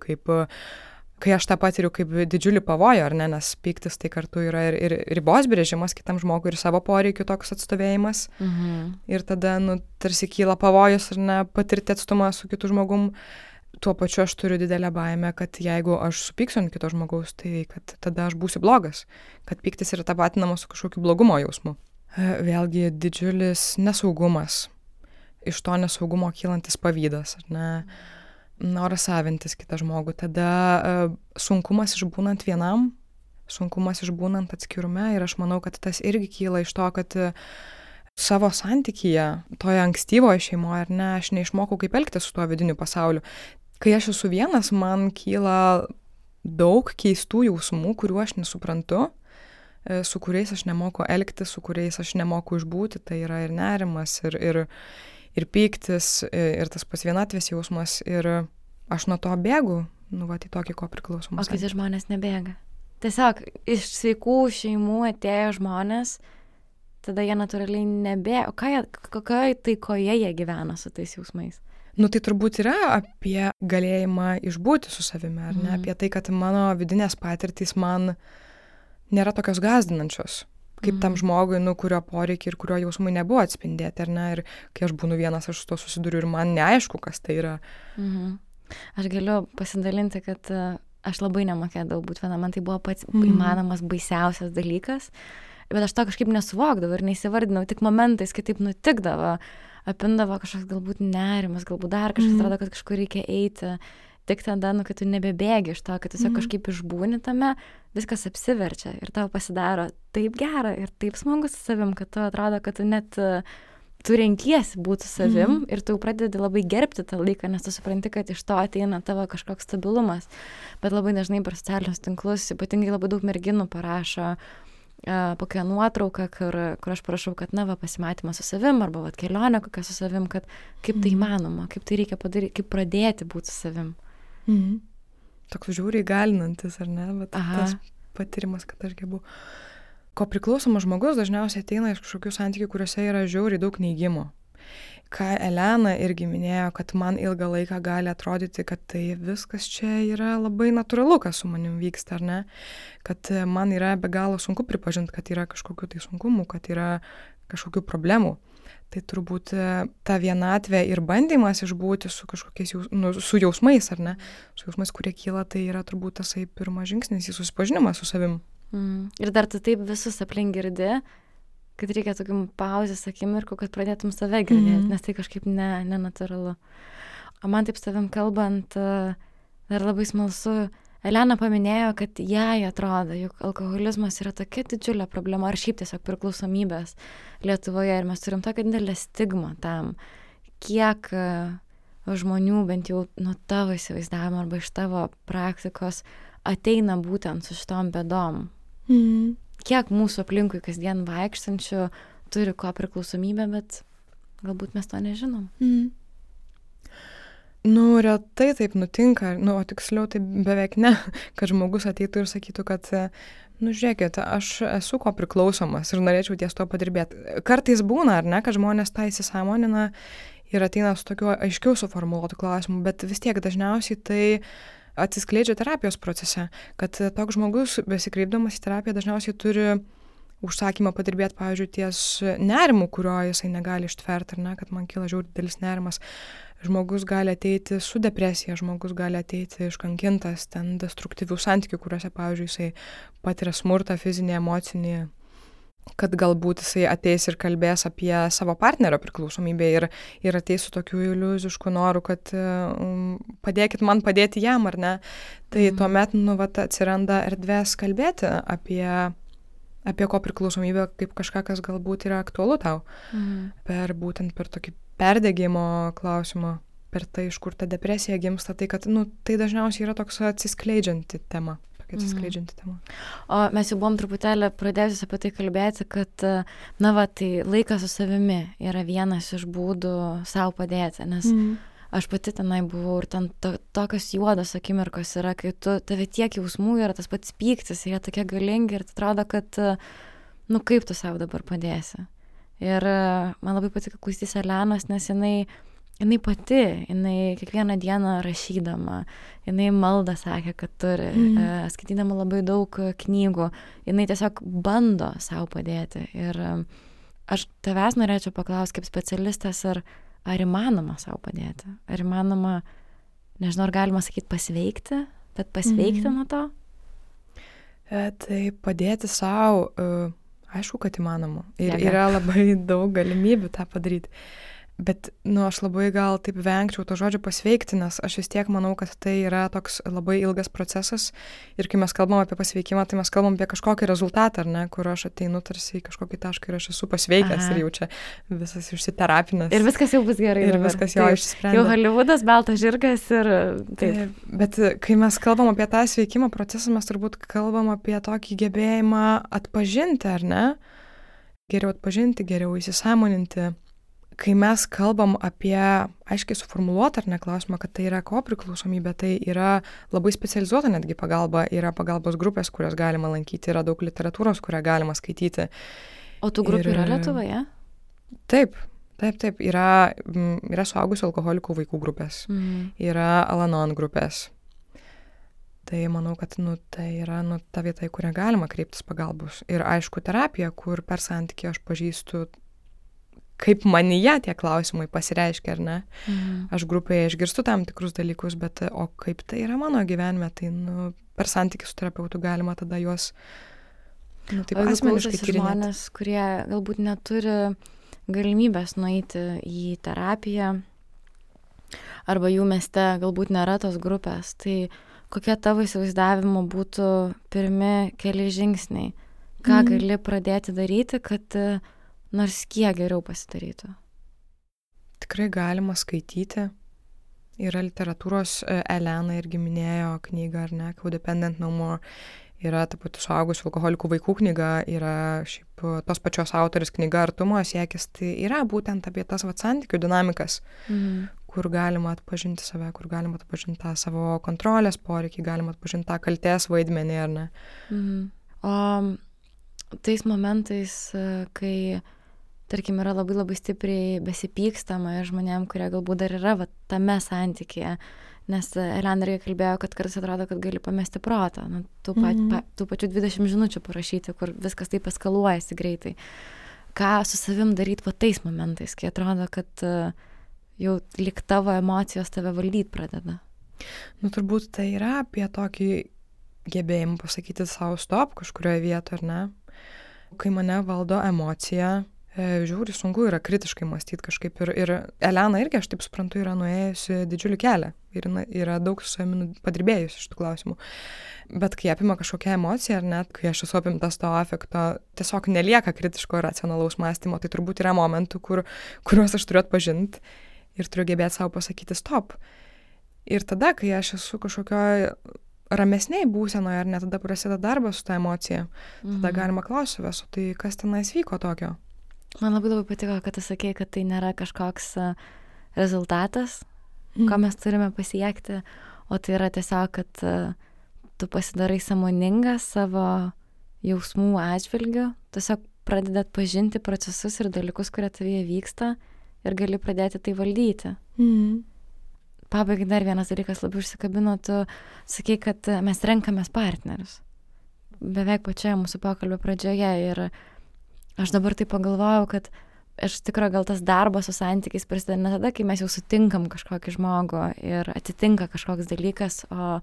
kai aš tą patiriu kaip didžiulį pavojų, ar ne, nes pyktis tai kartu yra ir ribos brėžimas kitam žmogui ir savo poreikių toks atstovėjimas. Ir tada, tarsi kyla pavojus, ar ne, patirti atstumą su kitu žmogum. Tuo pačiu aš turiu didelę baimę, kad jeigu aš supyksiu ant kito žmogaus, tai kad tada aš būsiu blogas, kad pyktis yra tapatinamas su kažkokiu blogumo jausmu. Vėlgi didžiulis nesaugumas, iš to nesaugumo kylantis pavydas, ar ne, noras savintis kitą žmogų, tada sunkumas išbūnant vienam, sunkumas išbūnant atskirume ir aš manau, kad tas irgi kyla iš to, kad savo santykyje, toje ankstyvoje šeimoje, ar ne, aš neišmokau kaip elgtis su tuo vidiniu pasauliu. Kai aš esu vienas, man kyla daug keistų jausmų, kuriuo aš nesuprantu, su kuriais aš nemoku elgtis, su kuriais aš nemoku išbūti, tai yra ir nerimas, ir pyktis, ir tas pats vienatvės jausmas, ir aš nuo to bėgu, į tokį kopriklausomą. O kiti žmonės nebėga. Tiesiog iš sveikų šeimų atėjo žmonės, tada jie natūraliai nebėga. O kokioje taikoje jie gyvena su tais jausmais? Tai turbūt yra apie galėjimą išbūti su savimi, ar ne? Apie tai, kad mano vidinės patirtys man nėra tokios gąsdinančios, kaip tam žmogui, kurio poreikiai ir kurio jausmai nebuvo atspindėti, ar ne? Ir kai aš būnu vienas, aš su to susiduriu ir man neaišku, kas tai yra. Aš galiu pasidalinti, kad aš labai nemokėdavau būti viena, man tai buvo pats įmanomas baisiausias dalykas, bet aš to kažkaip nesuvokdavau ir neįsivardinau, tik momentais kitaip nutikdavo, apindavo kažkoks galbūt nerimas, galbūt dar kažkas atrodo, kad kažkur reikia eiti. Tik tada, kai tu nebebėgi iš to, kad tiesiog kažkaip išbūni tame, viskas apsiverčia ir tau pasidaro taip gera ir taip smagu su savim, kad tu atrodo, kad tu net tu renkiesi būti savim ir tu pradedi labai gerbti tą laiką, nes tu supranti, kad iš to ateina tavo kažkoks stabilumas. Bet labai dažnai per socialinius tinklus, ypatingai labai daug merginų parašo kokią nuotrauką, kur aš parašau, kad pasimatymas su savim arba kelionė kokia su savim, kad kaip tai įmanoma, kaip tai reikia padaryti, kaip pradėti būti su savim. Toks žiūriai galinantis, ar ne? Bet tas patyrimas, kad aš gebu. Ko priklausomas žmogus dažniausiai ateina iš kažkokių santykių, kuriuose yra žiauriai daug neigimo. Ką Elena irgi minėjo, kad man ilgą laiką gali atrodyti, kad tai viskas čia yra labai natūralu, kas su manim vyksta, ar ne? Kad man yra be galo sunku pripažinti, kad yra kažkokių tai sunkumų, kad yra kažkokių problemų. Tai turbūt ta vienatvė ir bandymas išbūti su kažkokiais su jausmais, ar ne? Su jausmais, kurie kyla, tai yra turbūt tasai pirmas žingsnis į susipažinimą su savim. Ir dar tu taip visus aplink girdi, kad reikia tokių pauzės akimirkų, kad pradėtum save girdėti, nes tai kažkaip nenatūralu. O man taip savim kalbant, dar labai smalsu, Elena paminėjo, kad jai atrodo, jog alkoholizmas yra tokia didžiulė problema, ar šiaip tiesiog priklausomybės Lietuvoje, ir mes turim tokią didelę stigmą tam, kiek žmonių, bent jau nuo tavo įsivaizdavimo arba iš tavo praktikos, ateina būtent su šitom bėdom. Kiek mūsų aplinkui kasdien vaikštančių turi ko priklausomybę, bet galbūt mes to nežinom. Retai taip nutinka, o tiksliau tai beveik ne, kad žmogus ateitų ir sakytų, kad, žiūrėkit, aš esu ko priklausomas ir norėčiau ties to padirbėti. Kartais būna, ar ne, kad žmonės tą įsisąmonina ir ateina su tokiu aiškiau suformuluotu klausimu, bet vis tiek dažniausiai tai atsiskleidžia terapijos procese, kad toks žmogus, besikreipdamas į terapiją, dažniausiai turi užsakymą padirbėti, pavyzdžiui, ties nerimu, kurio jisai negali ištverti, ar ne, kad man kyla žiauriai didelis nerimas. Žmogus gali ateiti su depresija, žmogus gali ateiti iškankintas, ten destruktyvių santykių, kuriuose, pavyzdžiui, jisai patiria smurtą, fizinį, emocinį, kad galbūt jisai ateis ir kalbės apie savo partnerio priklausomybę ir ateis su tokiu iliuzišku noru, kad padėkit man padėti jam, ar ne. Tai tuomet, atsiranda erdvės kalbėti apie ko priklausomybę kaip kažką, kas galbūt yra aktualu tau. Būtent per tokį perdegimo klausimą, per tai, iš kur ta depresija gimsta, tai kad, tai dažniausiai yra toks atsiskleidžianti tema. O mes jau buvom truputėlį pradėjusi apie tai kalbėti, kad, tai laikas su savimi yra vienas iš būdų savo padėti, nes aš pati tenai buvau ir ten tokios juodos akimirkos yra, kai tave tiek jausmų yra, tas pats pyktis, jie tokie galingi ir atrodo, kad, kaip tu savo dabar padėsi. Ir man labai patiko klausytis Elenos, nes jinai pati, jinai kiekvieną dieną rašydama, jinai maldą sakė, kad turi, skaitydama labai daug knygų, jinai tiesiog bando savo padėti. Ir aš tavęs norėčiau paklausti kaip specialistas, ar įmanoma savo padėti? Ar įmanoma, nežinau, ar galima sakyti pasveikti, bet pasveikti nuo to? Tai padėti savo, aišku, kad įmanoma. Ir yra labai daug galimybių tą padaryti. Bet, aš labai gal taip vengčiau to žodžio pasveikti, nes aš vis tiek manau, kad tai yra toks labai ilgas procesas ir kai mes kalbam apie pasveikimą, tai mes kalbam apie kažkokį rezultatą, ar ne, kur aš ateinu tarsi į kažkokį tašką ir aš esu pasveikęs ir jau čia visas išsiterapinęs. Ir viskas jau bus gerai. Ir viskas jau išsprendė. Jau Hollywoodas, baltas žirgas ir taip. Bet kai mes kalbam apie tą sveikimo procesą, mes turbūt kalbam apie tokį gebėjimą atpažinti, ar ne? Geriau atpažinti, geriau įsisąmoninti. Kai mes kalbam apie aiškiai suformuluotą ar ne klausimą, kad tai yra kopriklausomybė, tai yra labai specializuota netgi pagalba, yra pagalbos grupės, kurias galima lankyti, yra daug literatūros, kurią galima skaityti. O tų grupių yra Lietuvoje? Taip. Yra suaugusių alkoholikų vaikų grupės, yra Al-Anon grupės. Tai manau, kad tai yra ta vieta, į kurią galima kreiptis pagalbos. Ir aišku, terapija, kur per santykį aš pažįstu kaip manyje tie klausimai pasireiškia, ar ne? Aš grupėje išgirstu tam tikrus dalykus, bet o kaip tai yra mano gyvenime, tai per santykį su terapeutu galima tada juos taip asmeniškai tyrinėti. Žmonės, kurie galbūt neturi galimybės nueiti į terapiją, arba jų mieste galbūt nėra tos grupės, tai kokie tavo įsivaizdavimo būtų pirmi keli žingsniai? Ką gali pradėti daryti, kad nors kiek geriau pasidarytų? Tikrai galima skaityti. Yra literatūros, Elena irgi minėjo knygą, ar ne, Codependent No More. Yra ta pati suaugusių alkoholikų vaikų knyga, yra šiaip tos pačios autorės knyga Artumo siekis. Tai yra būtent apie tas santykių dinamikas, kur galima atpažinti save, kur galima atpažinti tą savo kontrolės poreikį, galima atpažinti tą kaltės vaidmenį, ar ne. O tais momentais, kai tarkim, yra labai labai stipriai besipykstama žmonėm, kurie galbūt dar yra tame santykėje, nes Elena irgi kalbėjo, kad kartais atrodo, kad gali pamesti protą, tų pačių 20 žinučių parašyti, kur viskas taip eskaluojasi greitai. Ką su savim daryti tais momentais, kai atrodo, kad jau lyg tavo emocijos tave valdyti pradeda? Turbūt tai yra apie tokį gebėjimą pasakyti savo stop kažkurioje vietoje, ar ne? Kai mane valdo emocija, žiūri, sunku yra kritiškai mąstyti kažkaip. Ir Elena irgi, aš taip suprantu, yra nuėjusi didžiulį kelią. Ir yra daug su savimi padirbėjusi iš tų klausimų. Bet kai apima kažkokią emociją, ar net kai aš esu apimtas to afekto, tiesiog nelieka kritiško ir racionalaus mąstymo. Tai turbūt yra momentų, kuriuos aš turiu atpažinti ir turiu gebėti savo pasakyti stop. Ir tada, kai aš esu kažkokioje ramesniai būsenoje, ar ne, tada prasideda darbas su ta emocija. Tada galima klausyti savęs, tai kas tenais vyko tokio? Man labai patiko, kad tu sakei, kad tai nėra kažkoks rezultatas, ko mes turime pasiekti, o tai yra tiesiog, kad tu pasidarai sąmoningas savo jausmų atžvilgiu, tiesiog pradedi atpažinti procesus ir dalykus, kurie tavyje vyksta ir gali pradėti tai valdyti. Pabaigai dar vienas dalykas labai užsikabino, tu sakei, kad mes renkamės partnerius. Beveik pačioje mūsų pokalbio pradžioje ir aš dabar taip pagalvojau, kad aš tikrai gal tas darbas su santykiais prasideda ne tada, kai mes jau sutinkam kažkokį žmogų ir atsitinka kažkoks dalykas, o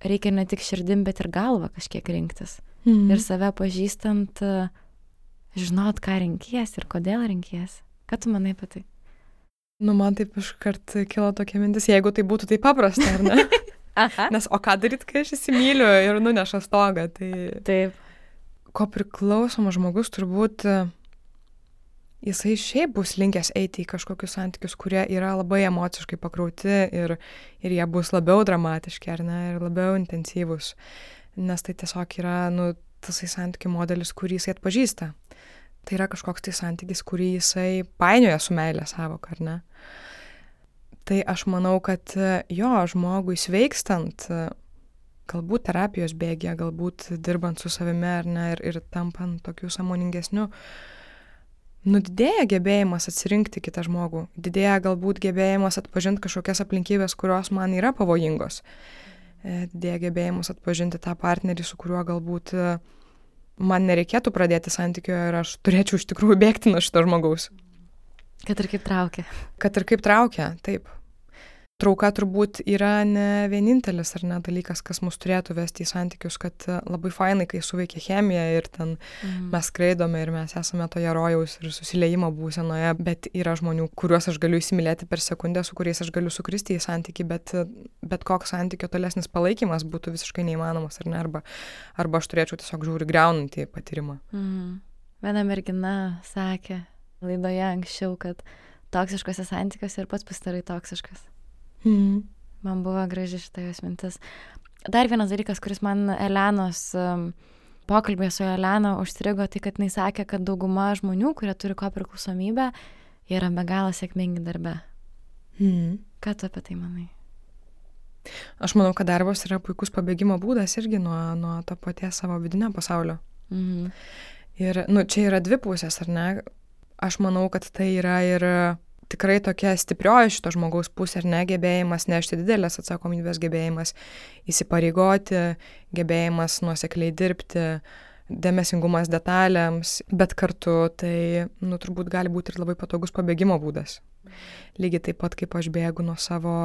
reikia ne tik širdim, bet ir galvą kažkiek rinktis. Ir save pažįstant, žinot, ką renkies ir kodėl renkies. Ką tu manai apie tai? Man taip iškart kilo tokia mintis, jeigu tai būtų taip paprasta, ar ne? Nes o ką daryt, kai aš įsimyliu ir nuneša stogą, tai... Taip. Ko priklausomas žmogus turbūt jisai šiaip bus linkęs eiti į kažkokius santykius, kurie yra labai emociškai pakrauti ir jie bus labiau dramatiški, ar ne, ir labiau intensyvus. Nes tai tiesiog yra, tasai santykių modelis, kurį jisai atpažįsta. Tai yra kažkoks tai santykis, kurį jisai painioja su meilė savoka, ar ne. Tai aš manau, kad žmogui sveikstant, galbūt terapijos bėgė, galbūt dirbant su savimi ar ne, ir tampant tokiu sąmoningesniu, didėja gebėjimas atsirinkti kitą žmogų, didėja galbūt gebėjimas atpažinti kažkokias aplinkybės, kurios man yra pavojingos, didėja gebėjimas atpažinti tą partnerį, su kuriuo galbūt man nereikėtų pradėti santykio ir aš turėčiau iš tikrųjų bėgti nuo šito žmogaus. Kad ir kaip traukia. Kad ir kaip traukia, taip. trauka turbūt yra ne vienintelis ar ne dalykas, kas mus turėtų vesti į santykius, kad labai fainai, kai suveikia chemija ir ten mes skraidome ir mes esame toje rojaus ir susiliejimo būsenoje, bet yra žmonių, kuriuos aš galiu įsimylėti per sekundę, su kuriais aš galiu sukristi į santykį, bet koks santykio tolesnis palaikymas būtų visiškai neįmanomas, ar ne, arba aš turėčiau tiesiog žiūri griaunantį patyrimą. Viena mergina sakė laidoje anksčiau, kad toksiškose santykiuose ir pats pasidarai toksiškas. Man buvo graži šita jos mintis. Dar vienas dalykas, kuris man Elenos pokalbėje su Elena užstrigo, tai kad jinai sakė, kad dauguma žmonių, kurie turi kopriklausomybę, jie yra be galo sėkmingi darbe. Ką tu apie tai manai? Aš manau, kad darbas yra puikus pabėgimo būdas irgi nuo to paties savo vidinio pasaulio. Ir čia yra dvi pusės, ar ne? Aš manau, kad tai yra ir tikrai tokia stiprioji šito žmogaus pusė, ar ne, gebėjimas nešti didelės atsakomybės, gebėjimas įsipareigoti, gebėjimas nuosekliai dirbti, dėmesingumas detalėms, bet kartu tai, turbūt gali būti ir labai patogus pabėgimo būdas. Lygiai taip pat, kaip aš bėgu nuo savo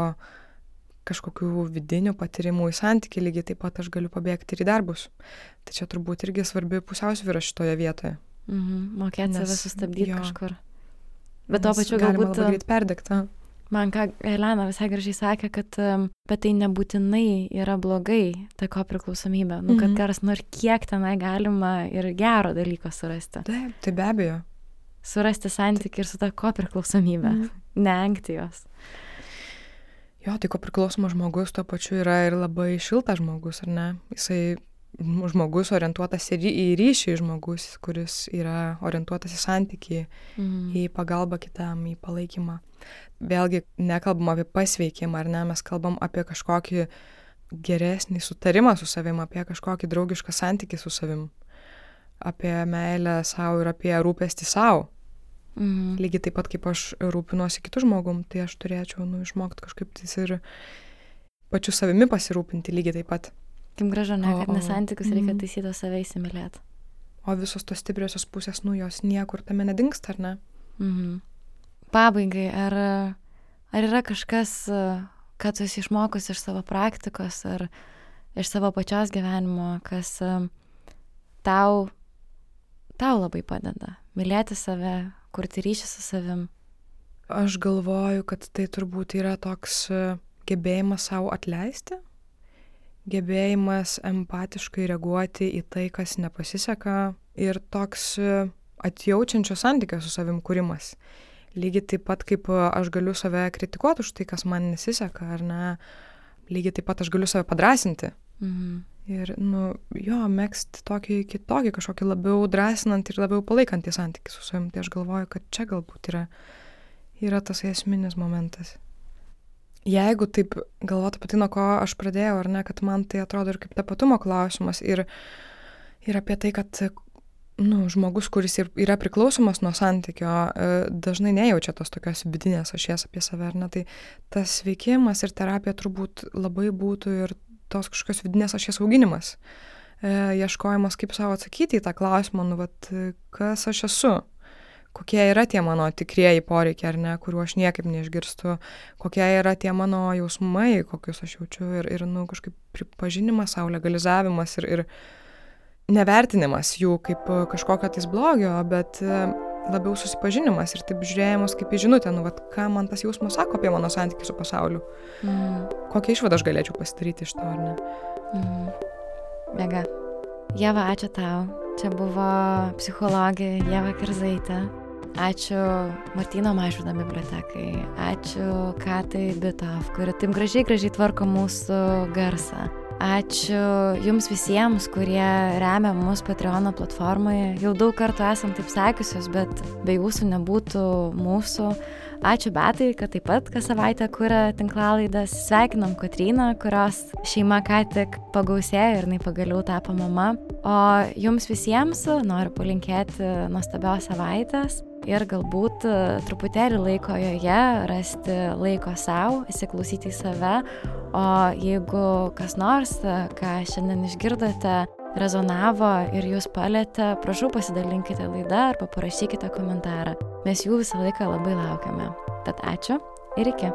kažkokių vidinių patyrimų į santykį, lygiai taip pat aš galiu pabėgti ir į darbus. Tai čia turbūt irgi svarbi pusiausvyra šitoje vietoje. Mokėti save sustabdyti kažkur. Bet to pačiu galima labai greit perdegti. Man ką Elena visai gražiai sakė, kad tai nebūtinai yra blogai, ta kopriklausomybė. Kad karas nors kiek tenai galima ir gero dalyko surasti. Taip, tai be abejo. Surasti santykį ir su ta kopriklausomybė. Neengti jos. Jo, tai kopriklausomas žmogus tuo pačiu yra ir labai šiltas žmogus, ar ne? Jisai žmogus orientuotas į ryšį, žmogus, kuris yra orientuotas į santykį, į pagalbą kitam, į palaikymą. Vėlgi nekalbam apie pasveikimą, ar ne, mes kalbam apie kažkokį geresnį sutarimą su savim, apie kažkokį draugišką santykį su savim, apie meilę savo ir apie rūpestį savo. Lygiai taip pat, kaip aš rūpinuosi kitų žmogum, tai aš turėčiau išmokti kažkaip tais ir pačiu savimi pasirūpinti lygiai taip pat. Kaip gražu, ne, kad nesantykius reikia taisyti save įsimylėti. O visos tos stipriosios pusės, jos niekur tame nedingsta, ar ne? Pabaigai, ar yra kažkas, ką tu esi išmokus iš savo praktikos ar iš savo pačios gyvenimo, kas tau labai padeda mylėti save, kurti ryšį su savim? Aš galvoju, kad tai turbūt yra toks gebėjimas savo atleisti, gebėjimas empatiškai reaguoti į tai, kas nepasiseka ir toks atjaučiančio santykio su savim kūrimas. Lygiai taip pat, kaip aš galiu save kritikuoti už tai, kas man nesiseka, ar ne, lygiai taip pat aš galiu save padrasinti. Ir, megzti tokį kitokį, kažkokį labiau drąsinantį ir labiau palaikantį santykį su savim. Tai aš galvoju, kad čia galbūt yra tas esminis momentas. Jeigu taip galvotų apie tai, nuo ko aš pradėjau, ar ne, kad man tai atrodo ir kaip tapatumo klausimas ir apie tai, kad žmogus, kuris yra priklausomas nuo santykio, dažnai nejaučia tos tokios vidinės ašies apie save, ar ne, tai tas veikimas ir terapija turbūt labai būtų ir tos kažkokios vidinės ašies auginimas, ieškojimas, kaip savo atsakyti į tą klausimą, kas aš esu. Kokie yra tie mano tikrieji poreikiai, ar ne, kuriuo aš niekaip neišgirstu, kokie yra tie mano jausmai, kokius aš jaučiu ir kažkaip pripažinimas, sau legalizavimas ir nevertinimas jų kaip kažkokio tais blogio, bet labiau susipažinimas ir taip žiūrėjimas kaip į žinutę, ką man tas jausmas sako apie mano santykį su pasauliu. Kokią išvadą aš galėčiau pasidaryti iš to, ar ne? Mega. Ieva, ačiū tau. Čia buvo psichologė Ieva Kerzaitė. Ačiū Martyno Mažvydo bibliotekai. Ačiū Katai Bitov, kuri taip gražiai tvarko mūsų garsą. Ačiū jums visiems, kurie remia mus Patreono platformoje. Jau daug kartų esam taip sakiusios, bet be jūsų nebūtų mūsų. Ačiū Betai, kad taip pat kas savaitę kuria tinklalaidas. Sveikinam Kotryną, kurios šeima ką tik pagausėjo ir jinai pagaliau tapo mama. O jums visiems noriu palinkėti nuostabios savaitės ir galbūt truputėlį laiko joje, rasti laiko savo, įsiklausyti į save. O jeigu kas nors, ką šiandien išgirdote, rezonavo ir jūs palietė, prašau pasidalinkite laidą arba parašykite komentarą. Mes jų visą laiką labai laukiame. Tad ačiū ir iki.